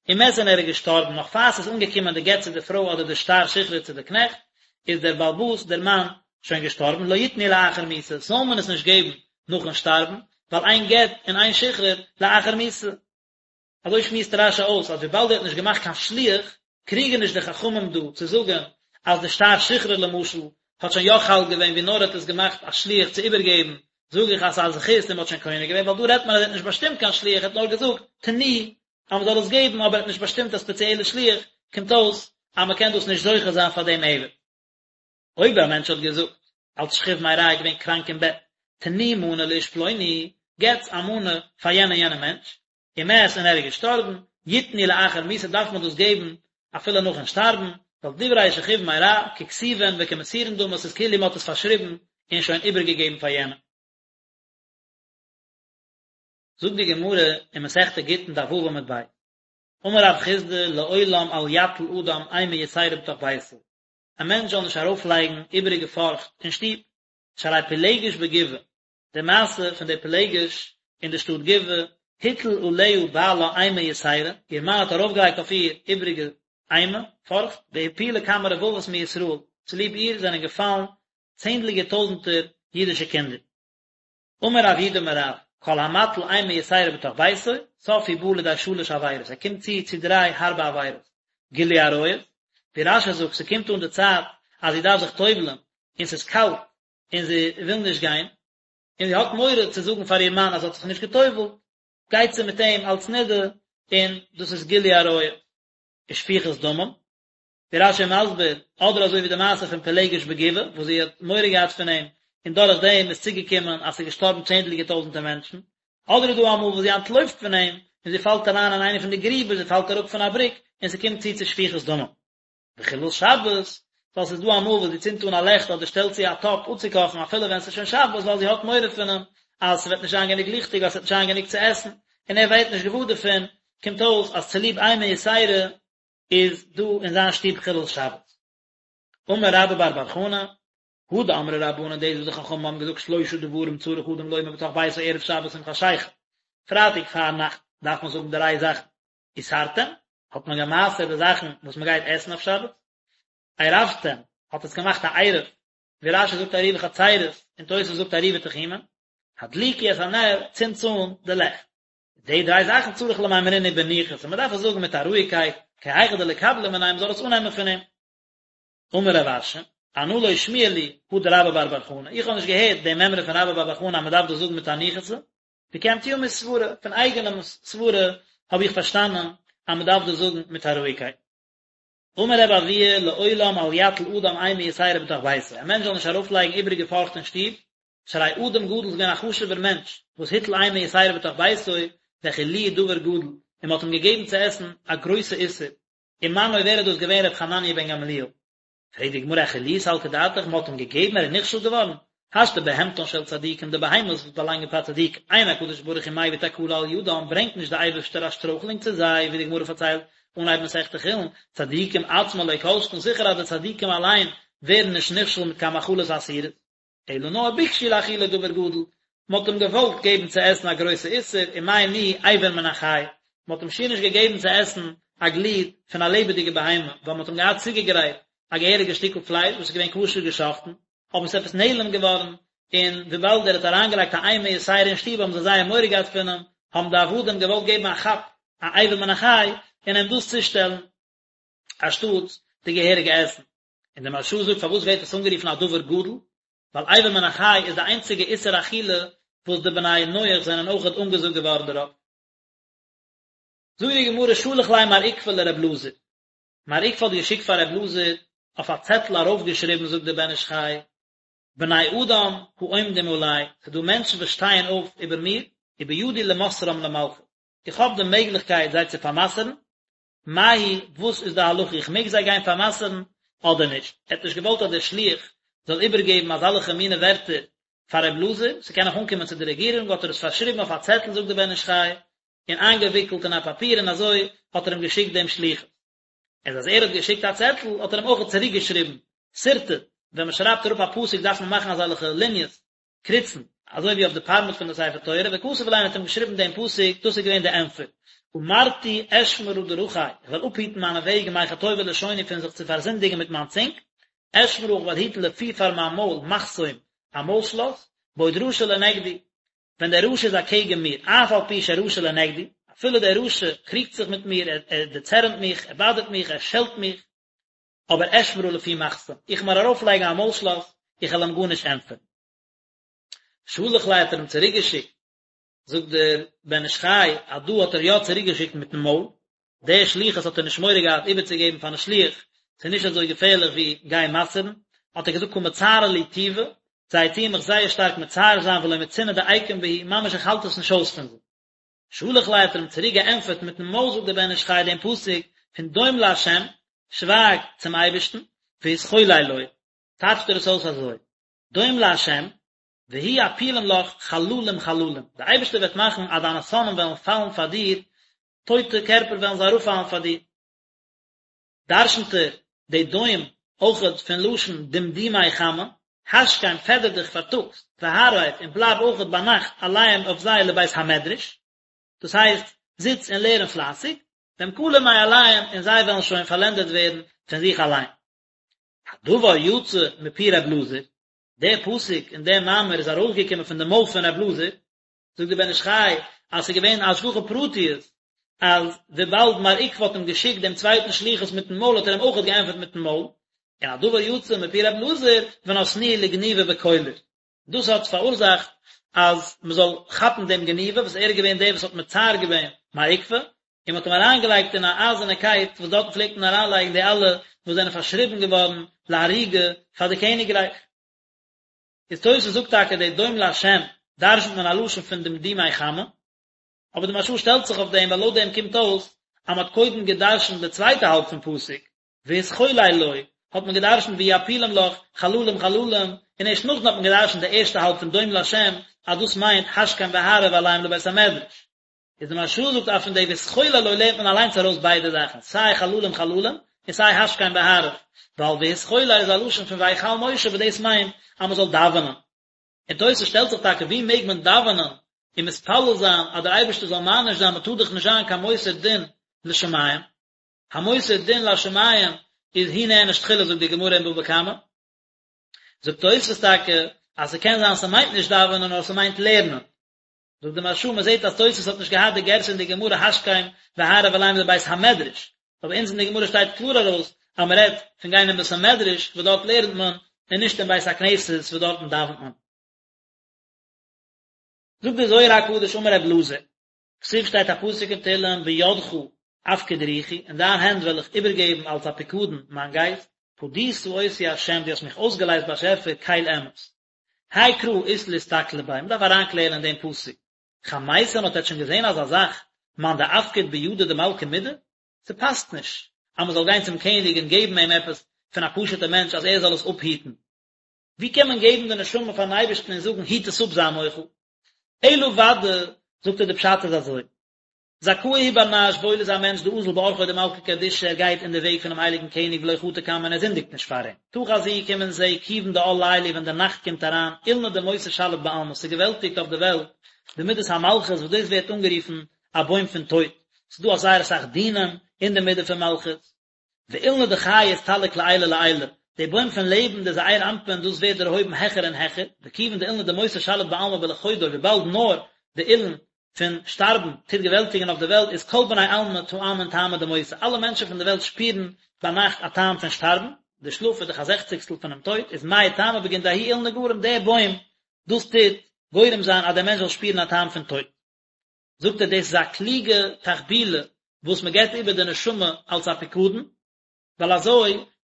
[SPEAKER 1] ומת און ער איז געשטארבן נאך פאר ס'איז אנגעקומען די גט צו די פרוי אדער די שטר שחרור צו די קנעכט, איז דער בעל הבית דער מאן שוין געשטארבן, לא יתנו לאחר מיתה, זאל מען עס נישט געבן נאכן שטארבן, ווייל אין גט און אין שחרור לאחר מיתה. אזוי שמועסט רש"י אויס אז וויבאלד ער האט נישט געמאכט קיין שליח, קריגען נישט די חכמים דא צו זאגען אז די שטר שחרור למשל האט שוין יא חל געווען ווי נאר ער האט עס געמאכט א שליח צו איבערגעבן, זאג איך אז ס'איז א זכות און מ'האט שוין קונה געווען, ווייל דא רעדט מען אז ער האט נישט באשטימט קיין שליח ער האט נאר געזאגט תנו אז מ'זאל עס געבן אבער ער האט נישט באשטימט א ספעציעלע שליח, קומט אויס אז מ'קען דאס נישט זוכה זיין פאר דעם עבד. אויב א מענטש האט געזאגט, אלס שכיב מרע איז געווען קראנק אין בעט, תנו מנה לאיש פלוני, געטס א מנה פאר יענע יענע מענטש, ומת און ער איז געשטארבן, יתנו לאחר מיתה דארף מען דאס געבן אפילו נאכן שטארבן, ווייל דברי שכיב מרע ככתובין וכמסורין דמו ס'איז כאילו מ'האט עס פארשריבן און שוין איבערגעגעבן פאר יענעם. זאגט די גמרא אין מסכת גיטין דף ו' עמוד ב', אמר רב חסדא לעולם אל יטיל אדם אימה יתירה בתוך ביתו, א מענטש זאל נישט ארויפלייגן איבעריגע פארכט אין שטוב, שהרי פילגש בגבעה, די מעשה פון די פילגש אין די שטאט גבעה, הטיל עליה בעלה אימה יתירה, איר מאן האט ארויפגעלייגט אויף איר איבריגע אימה, פארכט, והפילה כמה רבבות מישראל, צוליב איר זענען געפאלן צענדליגער טויזנטער אידישע קינדער. אמר רב יהודה אמר רב, כל המטיל אימה יתירה בתוך ביתו, סוף הוא בא לידי שלש עבירות, ער קומט צו צו דריי הארבע עבירות, גילוי עריות, ווי רש"י זאגט, ס'קומט אן די צייט אז זי דארף זיך טובל'ן, און ס'איז קאלט, און זי וויל נישט גיין, און זי האט מורא צו זאגן פאר איר מאן אז זי האט זיך נישט געטובל'ט, גייט זי מיט אים אלס נידה, און דאס איז גילוי עריות. ושפיכות דמים, ווי רש"י מסביר, אדער אזוי ווי די מעשה פון פילגש בגבעה, וואס זי האט מורא געהאט פון אים, און דורך דעם איז צוגעקומען אז ס'איז געשטארבן צענדליגער טויזנטער מענטשן, אדער איז דא אמאל וואס זי אנטלויפט פון אים, און זי פאלט אריין אין איינע פון די גריבער, זי פאלט אראפ פון א בריק, און ס'קומט צו צו שפיכות דמים. וחילול שבת, ווייל ס'איז דא אמאל וואס זי צינדט אן א לעכט אדער שטעלט צו א טאפ אפצוקאכן אפילו ווען ס'איז שוין שבת ווייל זי האט מורא פון אים אז ס'וועט נישט זיין גענוג ליכטיג ווייל ס'וועט נישט זיין גענוג צו עסן, און ער ווערט נישט געוואר דערפון, קומט אויס אז צוליב אימה יתירה איז דא אין זיין שטוב חילול שבת. אמר רבה בר בר חנה, הא דאמרי רבנן דאס וואס די חכמים האבן געזאגט שלושה דברים צריך אדם לומר בתוך ביתו ערב שבת עם חשיכה, פרייטאג פארנאכט דארף מען זאגן דריי זאכן, עשרתם, האט מען גע'מעשר'ט די זאכן וואס מען גייט עסן אויף שבת, עירבתם, האט עס געמאכט א עירוב, ווי רש"י זאגט עירובי חצירות, און תוס' זאגט עירובי תחומין, הדליקו את הנר, צינדטס אן די לעכט. די דריי זאכן צריך למימרינהו בניחותא, מען דארף עס זאגן מיט א רואיגקייט, כי היכי דליקבליה מיניה, מען זאל עס אננעמען פון אים. אמר רב אשי, אנא לא שמיע לי הא דרבה בר בר חנה, איך האב נישט געהערט די מימרא פון רבה בר בר חנה אז מען דארף דאס זאגן מיט א ניחותא, וקיימתיה מסברא, פון אייגענעם סברה האב איך פארשטאנען אז מען דארף דאס זאגן מיט א רואיגקייט. אמר רבי אבהו לעולם אל יטיל אדם אימה יתירה בתוך ביתו, א מענטש זאל נישט ארויפלייגן איבעריגע פארכט אין שטוב, שהרי אדם גדול איז געווען א חשובער מענטש, וואס הטיל אימה יתירה בתוך ביתו, והאכילוהו דבר גדול, און מען האט אים געגעבן צו עסן א גרויסע איסור, ומנו ווער איז דאס געווען ר' חנניה בן גמליאל? פרעגט די גמרא האכילוהו סלקא דעתך מען האט אים געגעבן ער איז נכשל געווארן? השתא בהמתן של צדיקים די בהמות וואס באלאנגען פאר צדיקים אין הקדוש ברוך הוא מביא תקלה על ידם ברענגט נישט די אייבערשטער א שטרויכלונג צו זיי ווי די גמרא פארציילט אנהייב מסכת חולין צדיקים עצמן לא כל שכן זיכער אז די צדיקים אליין ווערן נישט נכשל מיט קיין מאכלות אסורות. אלא נאר ביקשו להאכילו דבר גדול, מען האט אים געוואלט געבן צו עסן א גרויסע איסור, ומאי ניהו אבר מן החי, מען האט אים שיער נישט געגעבן צו עסן א גליד פון א לעבעדיגע בהמה, ווייל מען האט אים געהאט צוגעגרייט א געהעריגע שטיקל פלייש וואס איז געווען כשר געשאכטן, אבער עס איז עפעס נעלם געווארן, און וויבאלד ער האט אריינגעלייגט א אימה יתירה אין שטוב האבן זיי זייער מורא געהאט פון אים, האבן די עבדים געוואלט געבן א כאפ א אבר מן החי און אים דאס צושטעלן אנשטאטס די געהעריגע עסן. און דער מהרש"א זאגט פארוואס ווערט עס אנגערופן א דבר גדול, ווייל אבר מן החי איז די איינציגע איסור אכילה וואס די בני נח זענען אויכעט אנגעזאגט געווארן דערויף. זאגט די גמרא שלח ליה מר עוקבא לר' אלעזר, מר עוקבא האט געשיקט פאר ר' אלעזר אויף א צעטל ארויפגעשריבן זאגט דער בן איש חי, בני אדם העומדים עלי, ס'איז דא מענטשן וואס שטייען אויף איבער מיר, ובידי למוסרם למלכות, איך האב די מעגליכקייט זיי צו פאר'מסר'ן, מהו, וואס איז די הלכה, איך מעג זיי גיין פאר'מסר'ן אדער נישט? ער האט נישט געוואלט אז דער שליח זאל איבערגעבן אזאלעכע מינע ווערטער פאר ר' אלעזר, ס'קען נאך אנקומען צו די רעגירונג, האט ער עס פארשריבן אויף א צעטל זאגט דער בן איש חי, און איינגעוויקלט אין א פאפיר און אזוי האט ער אים געשיקט דעם שליחות. איז אז ער האט געשיקט א צעטל האט ער אים אויך צוריק געשריבן, שרטט, ווען מען שרייבט אראפ א פסוק דארף מען מאכן אזעלכע ליניעס, קריצן, אזוי ווי אויף די פארמעט פון די ספר תורה, וכתב ליה האט אים געשריבן דעם פסוק, דאס איז געווען די ענטפער, אמרתי אשמרה דרכי, איך וועל אפהיטן מיינע וועגן מחטובי לשוני פון זיך צו פארזינדיגן מיט מיין צונג, אשמרה איך וועל היטן לפי פאר מיין מויל מחסום, א מויל שלאס, בעוד רשע לנגדי, ווען דער רשע איז אקעגן מיר, אף על פי שרשע לנגדי, אפילו דער רשע קריגט זיך מיט מיר, ער דערצערנט מיך, ער באדערט מיך, ער שעלט מיך, אבער אשמרה לפי מחסום, איך וועל מיר ארויפלייגן א מויל שלאס, איך וועל אים גארנישט ענטפערן. שלח ליה האט ער אים צוריקגעשיקט, זאגט דער בן איש חי אז דא האט ער יא צוריקגעשיקט מיטן מויל, די שליחות האט ער נישט מורא געהאט איבערצוגעבן פארן שליח, ס'איז נישט אזוי געפערליך ווי גיין מסר'ן, האט ער געזאגט קא מצערי לי טובא, זיי טוען מיך זייער שטארק מצער זיין ולא מצינא דאיקום בהו, ממש איך האלט עס נישט אויס פון זיי. שלח ליה האט ער אים צוריק געענטפערט מיטן מויל זאגט דער בן איש חי דעם פסוק פון דום לה', שווייג צום אייבערשטן, והתחולל לו, טייטשט ער עס אויס אזוי, דום לה', והוא יפילם לך חללים חללים, דער אייבערשטער וועט מאכן אז דיינע שונאים וועלן פאלן פאר דיר, טויטע קערפער וועלן זיי אראפפאלן פאר דיר. דרשנט ער די דום אויכעט פון לשון דמדומי חמה, השכם פעדער דיך פארטאגס, והערב און בלייב אויכעט ביינאכט עליהם אויף זיי לבית המדרש, דאס הייסט, זיץ און לערן פלייסיג, והם כלים מאליהם און זיי וועלן שוין פארלענדערט ווערן פון זיך אליין. הדבר יצא מפי ר' אלעזר, דער פסוק און דער מאמר איז ארויסגעקומען פון די מויל פון ר' אלעזר, זאגט דער בן איש חי אז ס'איז געווען א השגחה פרטיות. אז וויבאלד מר עוקבא האט אים געשיקט דעם צווייטן שליחות מיטן מויל האט ער אים אויכעט געענטפערט מיטן מויל, און הדבר יצא מפי ר' אלעזר ונתנוהו לגניבא בקולר. דאס האט פאראורזאכט אז מען זאל כאפן דעם גניבא וואס ער איז געווען דער וואס האט מצער געווען מר עוקבא, און מען האט אים אריינגעלייגט אין א אייזערנע קייט וואס דארטן פלעגט מען אריינלייגן די אלע וואס זענען פארשריבן געווארן להריגה פאר די קעניגרייך. איז תוס' זאגט טאקע די דום להשם דרשנ'ט מען א לשון פון דמדומי חמה, אבער די מהרש"א שטעלט זיך אויף דעם ווייל לויט דעם קומט אויס אז מען האט קודם געדרשנ'ט די צווייטע האלב פון פסוק והתחולל לו, האט מען געדרשנ'ט ויעפילם לך חללים חללים, און ערשט נאכדעם האט מען געדרשנ'ט די ערשטע האלב פון דום להשם אז דאס מיינט השכם והערב עליהם לבית המדרש. איז די מהרש"א זאגט אז פון די והתחולל לו לערנט מען אליינס ארויס ביידע זאכן, סיי חללים חללים און סיי השכם והערב, ווייל והתחולל איז א לשון פון ויחל משה וואס דאס מיינט אז מען זאל דאווענען. און תוס' שטעלט זיך טאקע ווי מעג מען דאווענען און מתפלל זיין אז דער אייבערשטער זאל מעניש זיין מען טאר דאך נישט זיין קיין מוסר דין לשמים, המוסר דין לשמים איז הוא נענש תחילה זאגט די גמרא אין בבא קמא. זאגט תוס' טאקע אז ס'קען זיין ס'מיינט נישט דאווענען נאר ס'מיינט לערנען. זאגט די מהרש"א מען זעט אז תוס' האט נישט געהאט די גירסא אין די גמרא השכם והערב עליהם לבית המדרש, אבער אונז אין די גמרא שטייט קלאר ארויס אז מען רעדט פון גיין אין בית המדרש וואס דארט לערנט מען און נישט אין בית הכנסת וואס דארטן דאווענט מען. זאגט דער זוהר הקדוש אמר רב אלעזר, כתיב שטייט א פסוק אין תהלים בידך אפקיד רוחי, אין דיין הענט וועל איך איבערגעבן אלס א פיקדון מיין גייסט, פדית אותי ה' דו האסט מיך אויסגעלייזט באשעפער קל אמת. האי קרא אית לאסתכלא ביה, מ'דארף אריינקלערן אין דעם פסוק. חמיתון האט עטץ שוין געזען אזא זאך, מאן דאפקיד בידא דמלכא מידי? ס'פאסט נישט אז מ'זאל גיין צום קעניג און געבן אים עפעס פון א פשוט'ע מענטש אז ער זאל עס אפהיטן. ווי קען מען געבן די נשמה פארן אייבערשטן און זאגן היט עס אפ זיי מוחל? אלא ודאי, זאגט ער די פשט איז אזוי, זכאה הוא בר נש וואויל איז א מענטש דאזיל באורחוי דמלכא קדישא ער גייט אין די וועג פונעם הייליגן קעניג ולא חטי קמיה און ער זינדיגט נישט פאר אים. תא חזי קום און זע כיוון דעאל ליליא ווען די נאכט קומט אריין אילנא דמותא שליט בעלמא ס'געוועלטיגט אויף די וועלט די מידת המלכות וואס דאס ווערט אנגערופן א בוים פון טויט ס'איז דא א זייער אסאך דינים אין די מידה פון מלכות ואילנא דחיי אסתלק לעילא לעילא, די בוים פון לעבן, די זעיר אנפין, דאס ווערט דערהויבן העכער און העכער, וכיוון דאילנא דמותא שליט בעלמא בלחודוי, וויבאלד נאר די אילן פון שטארבן טוט געוועלטיגן אויף די וועלט, איז כל בני עלמא טעמין טעמא דמותא, אלע מענטשן פון די וועלט שפירן ביינאכט א טעם פון שטארבן, די שלאף איז דאך א זעכציגסטל פונעם טויט, איז מאי טעמא בגין דההוא אילנא גרים, דער בוים, דאס טוט גורם זיין אז דער מענטש זאל שפירן א טעם פון טויט. זאגט ער דאס איז א קלוגע תחבולה וואס מען געבט איבער די נשמה אלס א פיקדון, ווייל אזוי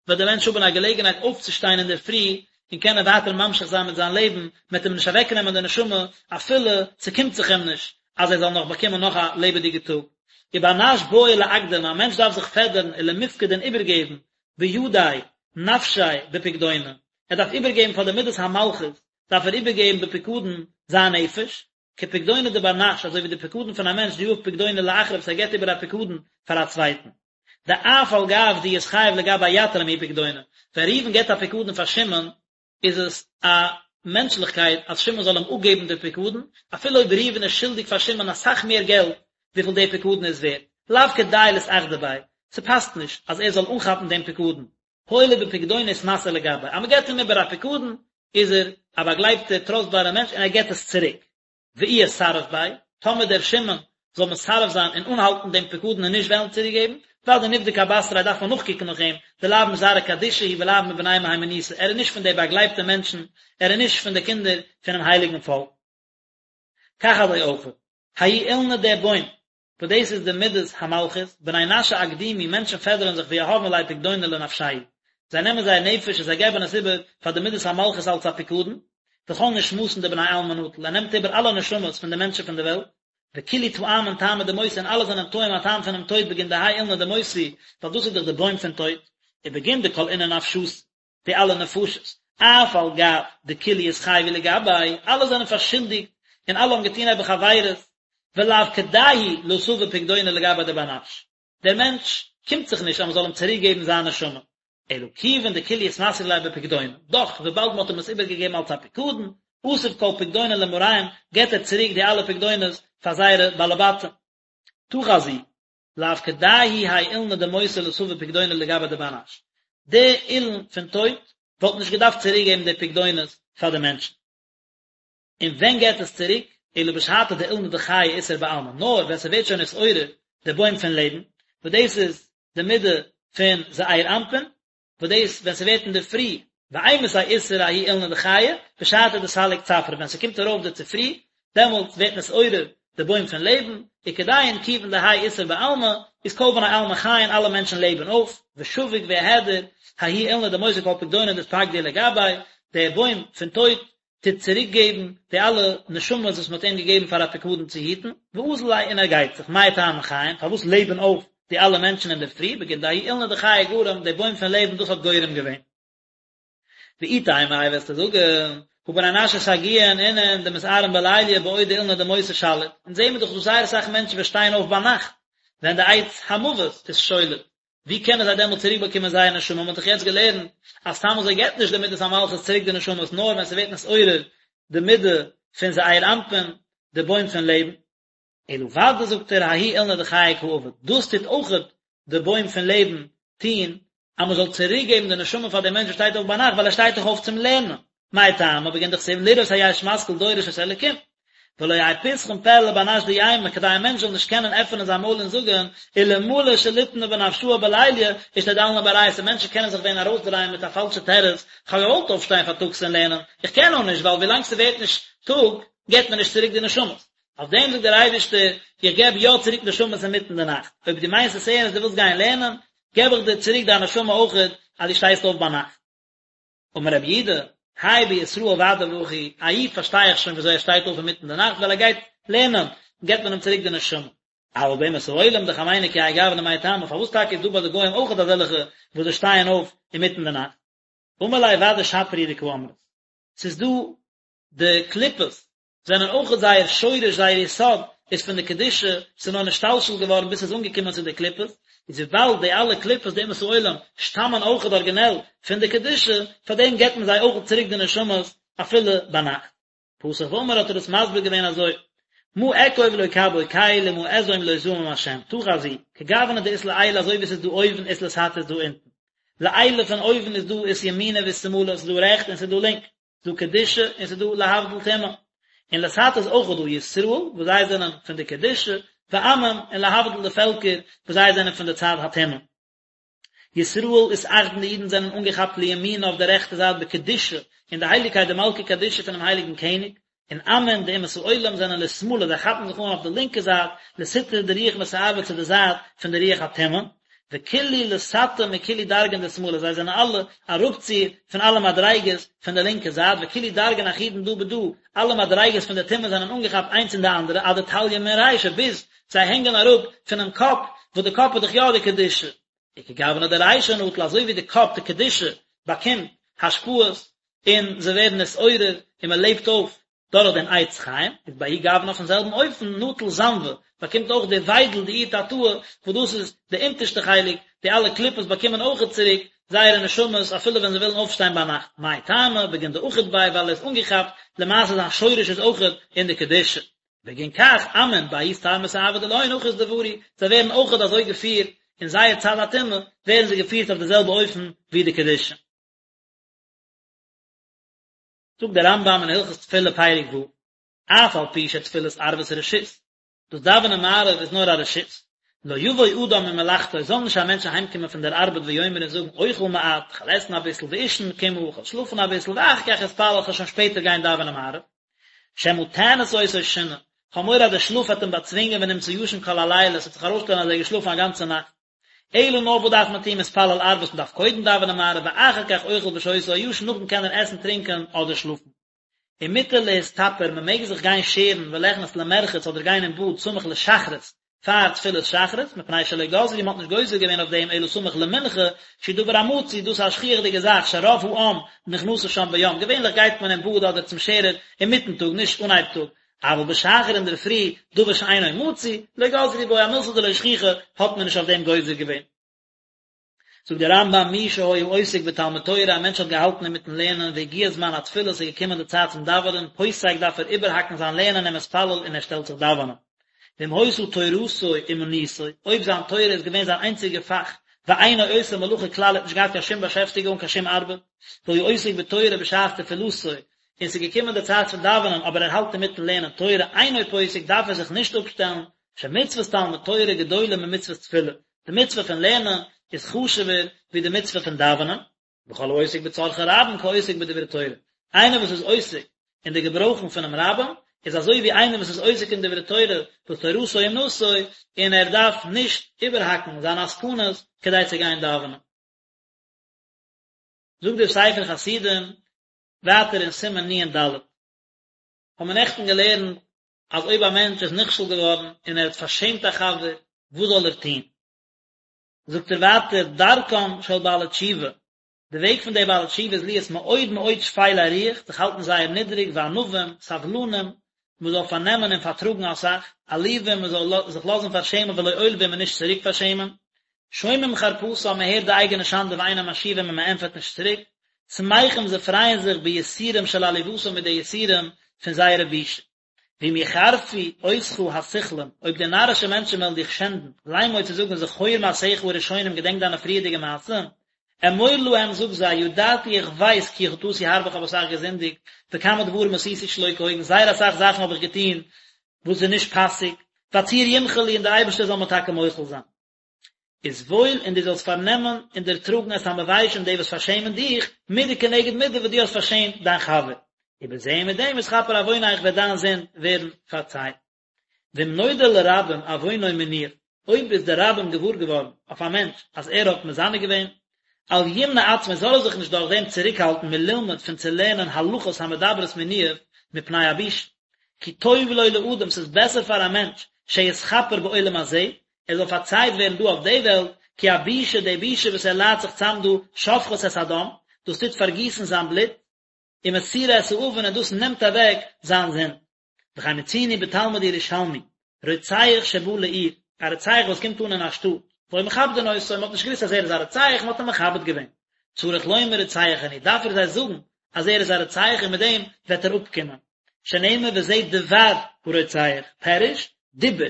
[SPEAKER 1] וועט דער מענטש האבן א געלעגנהייט אויפצושטיין אינדערפרי און קענען ווייטער ממשיך זיין מיט זיין לעבן, מען וועט אים נישט אוועקנעמען די נשמה אפילו ס'קומט זיך אים נישט אז ער זאל נאך באקומען נאך א לעבעדיגע טאג. ובר נש בעי לאקדמא, א מענטש דארף זיך פעדערן ולמפקד און איבערגעבן בידיה נפשיה בפקדונא, ער דארף איבערגעבן פאר די מדת המלכות דארף ער איבערגעבן בפיקדון זיין נפש, כפקדונא דבר נש, אזוי ווי די פקדון פון א מענטש דיהיב פקדונא לאחרא וואס ער געבט איבער א פקדון פאר א צווייטן. דאף על גב דאתחייב לגביה יתיר מההוא פקדונא, ווען ראובן געבט א פקדון פאר שמעון, איז עס א מענטשליכקייט אז שמעון זאל אים אפגעבן די פקדון, אפילו אויב ראובן איז שולדיג פאר שמעון אסאך מער געלט וויפיל די פקדון איז ווערט, לאו כדאי לאתאחדא ביה, ס'פאסט נישט אז ער זאל אנכאפן דעם פקדון, הואיל ובפקדונא אתמסר לגביה, אז מ'געבט אים איבער א פקדון, איז ער א באגלייבטער טראסטבארער מענטש און ער געבט עס צוריק. ואי אסרף ביה, טאמער דער שמעון זאל מסרב זיין און אנהאלטן דעם פקדון און נישט וועלן צוריקגעבן, ודאי נבדוק אבתריה דארף מען נאכקוקן נאך אים, דלאו מזרעא קדישא הוא ולאו מבני מהימנותא, ער איז נישט פון די באגלייבטע מענטשן, ער איז נישט פון די קינדער פונעם הייליגן פאלק. כך אזוי אויך, ההוא אילנא דער בוים, וואס דאס איז די מדת המלכות, בני נשא אקדומי, מענטשן פעדערן זיך ויהבין ליה פקדונא לנפשייהו, זיי נעמען זייער נפש און זיי געבן עס איבער פאר די מדת המלכות אלס א פיקדון, וכל נשמתין דבני עלמא נטיל, ער נעמט איבער אלע נשמות פון די מענטשן פון די וועלט, וכולהו טעמין טעמא דמותא און אלע זענען טועם א טעם פונעם טויט בגין דהאי אילנא דמותא, ווייל דאס איז דאך די בוים פון טויט, ובגין דכל אינון נפשתין, די אלע נפשות, אף על גב דכולהו אתחייבו לגביה, אלע זענען פארשולדיגט און אלע האבן געטון נעבעך עבירות, ולאו כדאי הוא לאתבא פקדונא לגביה דבר נש, דער מענטש קומט זיך נישט אז מען זאל אים צוריק געבן זיין נשמה, אלא כיוון דכולהו אתמסרו ליה בפקדונא, דאך וויבאלד מען האט אים עס איבערגעגעבן אלס א פיקדון, אתיב כל פקדונין למאריהון, געבט ער צוריק די אלע פקדונות פאר זייערע בעלי בתים. תא חזי, לאו כדאי הוא האי אילנא דמותא לאתבא פקדונא לגביה דבר נש. די אילן פון טויט וואלט נישט געדארפט צוריק געבן די פקדונות פאר די מענטשן. און ווען געבט עס צוריק? אלא בשעתא דאילנא דחיי אתער בעלמא, נאר ווען ס'ווערט שוין נתעורר. די בוים פון לעבן, וואס דאס איז די מידה פון זעיר אנפין, וואס דאס ווען ס'ווערט אינדערפרי, ואימתי אתער ההוא אילנא דחיי, בשעתא דסליק צפרא, ווען ס'קומט ארויף די צופרי, דעמאלטס ווערט נתעורר די בוים פון לעבן, וכדין כיוון דהאי אתער בעלמא, איז כל בני עלמא חיין אלע מענטשן לעבן אויף, ושביק ואהדר, ההוא אילנא דמותא כל פקדונין דאתפקדו לגביה, דער בוים פון טויט טוט צוריק געבן די אלע נשמות וואס מען האט אים געגעבן פאר א פיקדון צו היטן, ואזיל ליה און ער גייט זיך, מאי טעמא חיין, פארוואס לעבן אויף די אלע מענטשן אינדערפרי, בגין דההוא אילנא דחיי גרם, די בוים פון לעבן דאס האט גורם געווען. ואי תימא איי וועסטו זאגן, הא בר נשא סגיאין אינון דמתערין בליליא בעוד דאילנא דמותא שליט, אונז זעהן מיר דאך דא זייער אסאך מענטשן וואס שטייען אויף ביינאכט ווען די עץ המוות איז שולט, ווי קענען זיי דעמאלט צוריק באקומען זייער נשמה, מען האט דאך יעצט געלערנט אז סתם אזוי געבט נישט די מידת המלכות צוריק די נשמות נאר ווען ס'ווערט נתעורר די מידה פון זעיר אנפין, די בוים פון לעבן. אלא ודאי זאגט ער ההוא אילנא דחיי קא עביד, דאס טוט אויכעט די בוים פון לעבן טון, אז מען זאל צוריק געבן די נשמה פאר דעם מענטש וואס שטייט אויף ביינאכט ווייל ער שטייט דאך אויף צום לערנען, מאי טעמא בגין דכתיב לראות היש משכיל דורש את האלקים, ולא יהא פתחון פה לבר נש דיימא כדי א מענטש זאל נישט קענען עפענען זיין מויל און זאגען אלמלא שליטנא בנפשאי בליליא אשתדלנא באורייתא מענטשן קענען זיך ווען ארויסדרייען מיט א פאלשע תירוץ כ'האב געוואלט אויפשטיין פארטאגס און לערנען איך קען נאר נישט ווייל ווילאנג ס'ווערט נישט טאג געבט מען נישט צוריק די נשמות אויף דעם זאגט דער אייבערשטער איך געב יא צוריק נשמות אינמיטן די נאכט אויב דו מיינסט עס ערנסט דו ווילסט גיין לערנען געב איך דיר צוריק דיין נשמה אויכעט אז דו שטייסט אויף ביינאכט. אמר רבי יהודה, האי בישראל ודאי והכי, א איד פארשטיי איך שוין וויאזוי ער שטייט אויף אינמיטן די נאכט ווייל ער גייט לערנען, געבט מען אים צוריק די נשמה. אבל באומות העולם דחמינהו כי האי גוונא מאי טעמא, פארוואס טאקע איז דא ביי די גוים אויכעט אזעלכע וואס זיי שטייען אויף אינמיטן די נאכט? אמר ליה ודאי שפיר הוא דקאמרת, ס'איז דא די קליפות זענען אויכעט זייער שורש זייער יסוד איז פון די קדושה, ס'איז נאר נשתלשל געווארן ביז ס'איז אנגעקומען צו די קליפות, איז וויבאלד די אלע קליפות די אומות העולם שטאמען אויכעט ארגינעל פון די קדושה, פאר דעם געבט מען זיי אויכעט צוריק די נשמות אפילו ביינאכט. פתח ואמר האט ער עס מסביר געווען אזוי, מה אקוב לא קב בו קל ומה אזעום לא זעם השם, תא חזי, כגוונא דאית לעילא אזוי ווי ס'איז דא אויבן אית לתתא איז דא אונטן. לעילא פון אויבן איז דא אית ימינא ואית שמאלא ס'איז דא רעכט און ס'איז דא לינק. דא קדושה און ס'איז דא להבדיל טומאה. און לתתא איז אויך דא ישראל וואס זיי זענען פון די קדושה, ועמים און להבדיל די פעלקער וואס זיי זענען פון די צד הטומאה. ישראל אתאחדן די אידן זענען אנגעכאפט לימינא אויף די רעכטע זייט בקדושה אין די הייליגקייט דמלכא קדישא פונעם הייליגן קעניג, און עמין די אומות העולם זענען לשמאלא זיי כאפן זיך אן אויף די לינקע זייט לסטרא דרוח מסאבא צו די זייט פון די רוח הטומאה, וכולהו לתתא מכולהו דרגין דשמאלא זיי זענען אלע אראפצו פון אלע מדריגות פון די לינקע זייט וכולהו דרגין אחידן דא בדא אלע מדריגות פון די טומאה זענען אנגעכאפט איינס אין די אנדערע עד דתליין מן רישא ביז זיי הענגען אראפ פונעם קאפ וואס די קאפ איז דאך יא די קדושה וכגוונא דרישא נטיל אזוי ווי די קאפ די קדושה באקומט השפעות און זיי ווערן נתעורר און מען לעבט אויף דורך דעם עץ חיים, איז בההוא גוונא אויפן זעלבן אופן נטיל זנבא, באקומט אויך די וויידל די איהי תתאה, וואס דאס איז די אונטערשטע חלק, די אלע קליפות באקומען אויכעט צוריק זייערע נשמות אפילו ווען זיי ווילן אויפשטיין ביינאכט, מאי טעמא, בגין דאחיד ביה ווייל ער איז אנגעכאפט, למעשה זיין שורש איז אויכעט אין די קדושה. בגין כך עמין בההוא סטר מסאבא דלהון הכי אתדברו, זיי ווערן אויכעט אזוי געפירט אין זייער צד הטומאה, ווערן זיי געפירט אויף די זעלבע אופן ווי די קדושה. זאגט דער רמב"ם אין הלכות תפילה פרק ו', אף על פי שתפילת ערבית רשות, דאס דאווענען מעריב איז נאר א רשות, לא יבוא אדם ממלאכתו, זאל נישט א מענטש אהיימקומען פון דער ארבעט ויאמר און זאגן אוכל מעט, כ'וועל עסן אביסל, ואישן קמעא, כ'וועל שלאפן אביסל, ואחר כך אתפלל, כ'וועל שוין שפעטער גיין דאווענען מעריב. שמא תאנוס אותו שינה, כ'האב מורא אז דער שלאף וועט אים באצווינגען ונמצא ישן כל הלילה, עס וועט זיך ארויסשטעלן אז ער איז געשלאפן א גאנצע נאכט. אלא נאר וואס דארף מען טון מתפלל ערבית מען דארף קודם דאווענען מעריב ואחר כך אוכל ושותה או ישן נאכדעם קען ער עסן טרינקען אדער שלאפן. ומותר להסתפר מען מעג זיך גיין שערן וליכנס למרחץ אדער גיין אין באד סמוך לשחרית פאר תפילת שחרית מפני שלא גזרו מען האט נישט גוזר געווען אויף דעם אלא סמוך למנחה שהוא דבר המצוי דאס איז א שכיח'דיגע זאך שרוב העם נכנסים שם ביום געווענליך גייט מען אין באד אדער צום שערער אינמיטן טאג נישט אנהייב טאג אבל בשחר אינדערפרי, דבר שאינו מצוי, לא גזרו בו, א מילתא דלא שכיחא, האט מען נישט אויף דעם גוזר געווען. זאגט דער רמב"ם, מי שהיה עוסק בתלמוד תורה, א מענטש האט געהאלטן אינמיטן לערנען, והגיע זמן התפילה, ס'איז געקומען די צייט צום דאווענען, פוסק דארף ער איבערהאקן זיין לערנען ומתפלל און ער שטעלט זיך דאווענען. ואם היתה תורתו אומנותו, אויב זיין תורה איז געווען זיין איינציגע פאך, ואינו עושה מלאכה כלל, ער האט נישט געהאט קיין שום באשעפטיגונג, קיין שום ארבעט, והיה עוסק בתורה בשעת תפילתו, און ס'איז געקומען די צייט פון דאווענען אבער ער האלט אינמיטן לערנען תורה אינו פוסק דארף ער זיך נישט אפשטעלן. שמצוות תלמוד תורה גדולה ממצוות תפילה, די מצוה פון לערנען איז חשוב'ער ווי די מצוה פון דאווענען, וכל העוסק בצרכי רבים כעוסק בדברי תורה, איינער וואס איז עוסק אין די געברויכן פונעם רבים, איז אזוי ווי איינער וואס איז עוסק אין דברי תורה וואס תורתו אומנותו, און ער דארף נישט איבערהאקן זיינע עסקנות כדי צו גיין דאווענען. זאגט דער ספר חסידים ווייטער אין סימן נ"ד, האבן מיר נעכטן געלערנט אז אויב א מענטש איז נכשל געווארן און ער האט פארשעמט א חבר, וואס זאל ער טון? זאגט ער ווייטער, דרכם של בעלי תשובה, די וועג פון די בעלי תשובה איז להיות מאוד מאוד שפלי רוח, זיך האלטן זייער נידריג, וענווים, סבלנים, מען זאל פארנעמען און פארטראגן אסאך, עלובים, מען זאל זיך לאזן פארשעמען ולא עולבים און נישט צוריק פארשעמען, שומעים חרפתם, מען הערט די אייגענע שאנדע ואינם משיבים און מען ענטפערט נישט צוריק, שמחים זיי פרייען זיך ביסורים של עליבתם מיט די יסורים פון זייערע בושה. ואם יחרפו אותך הסכלים, אויב די נארישע מענטשן וועלן דיך שענדן, לאמור צו זאגן זכור מעשיך הראשונים געדענק דיינע פריערדיגע מעשים, אמור להם זאג זיי, ידעתי איך ווייס כי חטאתי הרבה איך האב אסאך געזינדיגט, וכמה דברים עשיתי שלא כהוגן זייער אסאך זאכן האב איך געטון וואס איז נישט פאסיג, והצור ימחול לי און דער אייבערשטער זאל מיר טאקע מוחל זיין. וסבול און דו זאלסט פארנעמען און דערטראגן את המביישים די וואס פארשעמען דיך, מידה כנגד מידה וואס דו האסט פארשעמט דיין חבר. ובזה מיט דעם יתכפר עוונך וועט דיין זינד ווערן פארצייט. ואם נודע לרבים עוונו מניאוף, אויב איז די רבים געוואר געווארן אויף א מענטש אז ער האט מזנה געווען, אל ימנע עצמו זאל ער זיך נישט דורך דעם צוריקהאלטן מללמוד פון צו לערנען הלכות המדברות מניאוף מפני הבושה. כי טוב לו לאדם ס'איז בעסער פאר א מענטש שיתכפר בעולם הזה, ער זאל פארצייט ווערן דא אויף די וועלט, כי הבושה, די בושה וואס ער ליידט זיך צאם דא, שופכת את הדם, דאס טוט פארגיסן זיין בלוט, ומסירה את העוון און דאס נעמט אוועק זיין זינד. וכן מצינו בתלמוד ירושלמי, רוצח שבא לעיר, א רוצח וואס קומט אן אין א שטאט, והיו מכבדין אותו, מען האט נישט געוואוסט אז ער איז א רוצח, מען האט אים מכבד געווען. צריך לומר רוצח אני, דארף ער זיי זאגן אז ער איז א רוצח און מיט דעם וועט ער אפקומען. שנאמר וזה דבר הרוצח, פירוש, דיבור,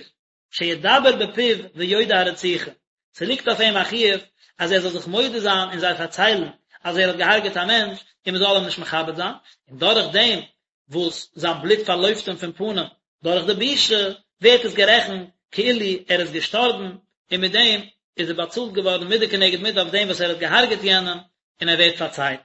[SPEAKER 1] שידבר בפיו ויודה הרציחה, ס'ליגט אויף אים א חיוב אז ער זאל זיך מודה זיין און זיי פארציילן אז ער האט געהארגעט א מענטש און מ'זאל אים נישט מכבד זיין, און דורך דעם וואס זיין בלוט פארלויפט אים פון פנים דורך די בושה, ווערט עס גערעכנט כאילו ער איז געשטארבן, און מיט דעם איז ער באצאלט געווארן מידה כנגד מידה אויף דעם וואס ער האט געהארגעט יענעם, און ער ווערט פארצייט.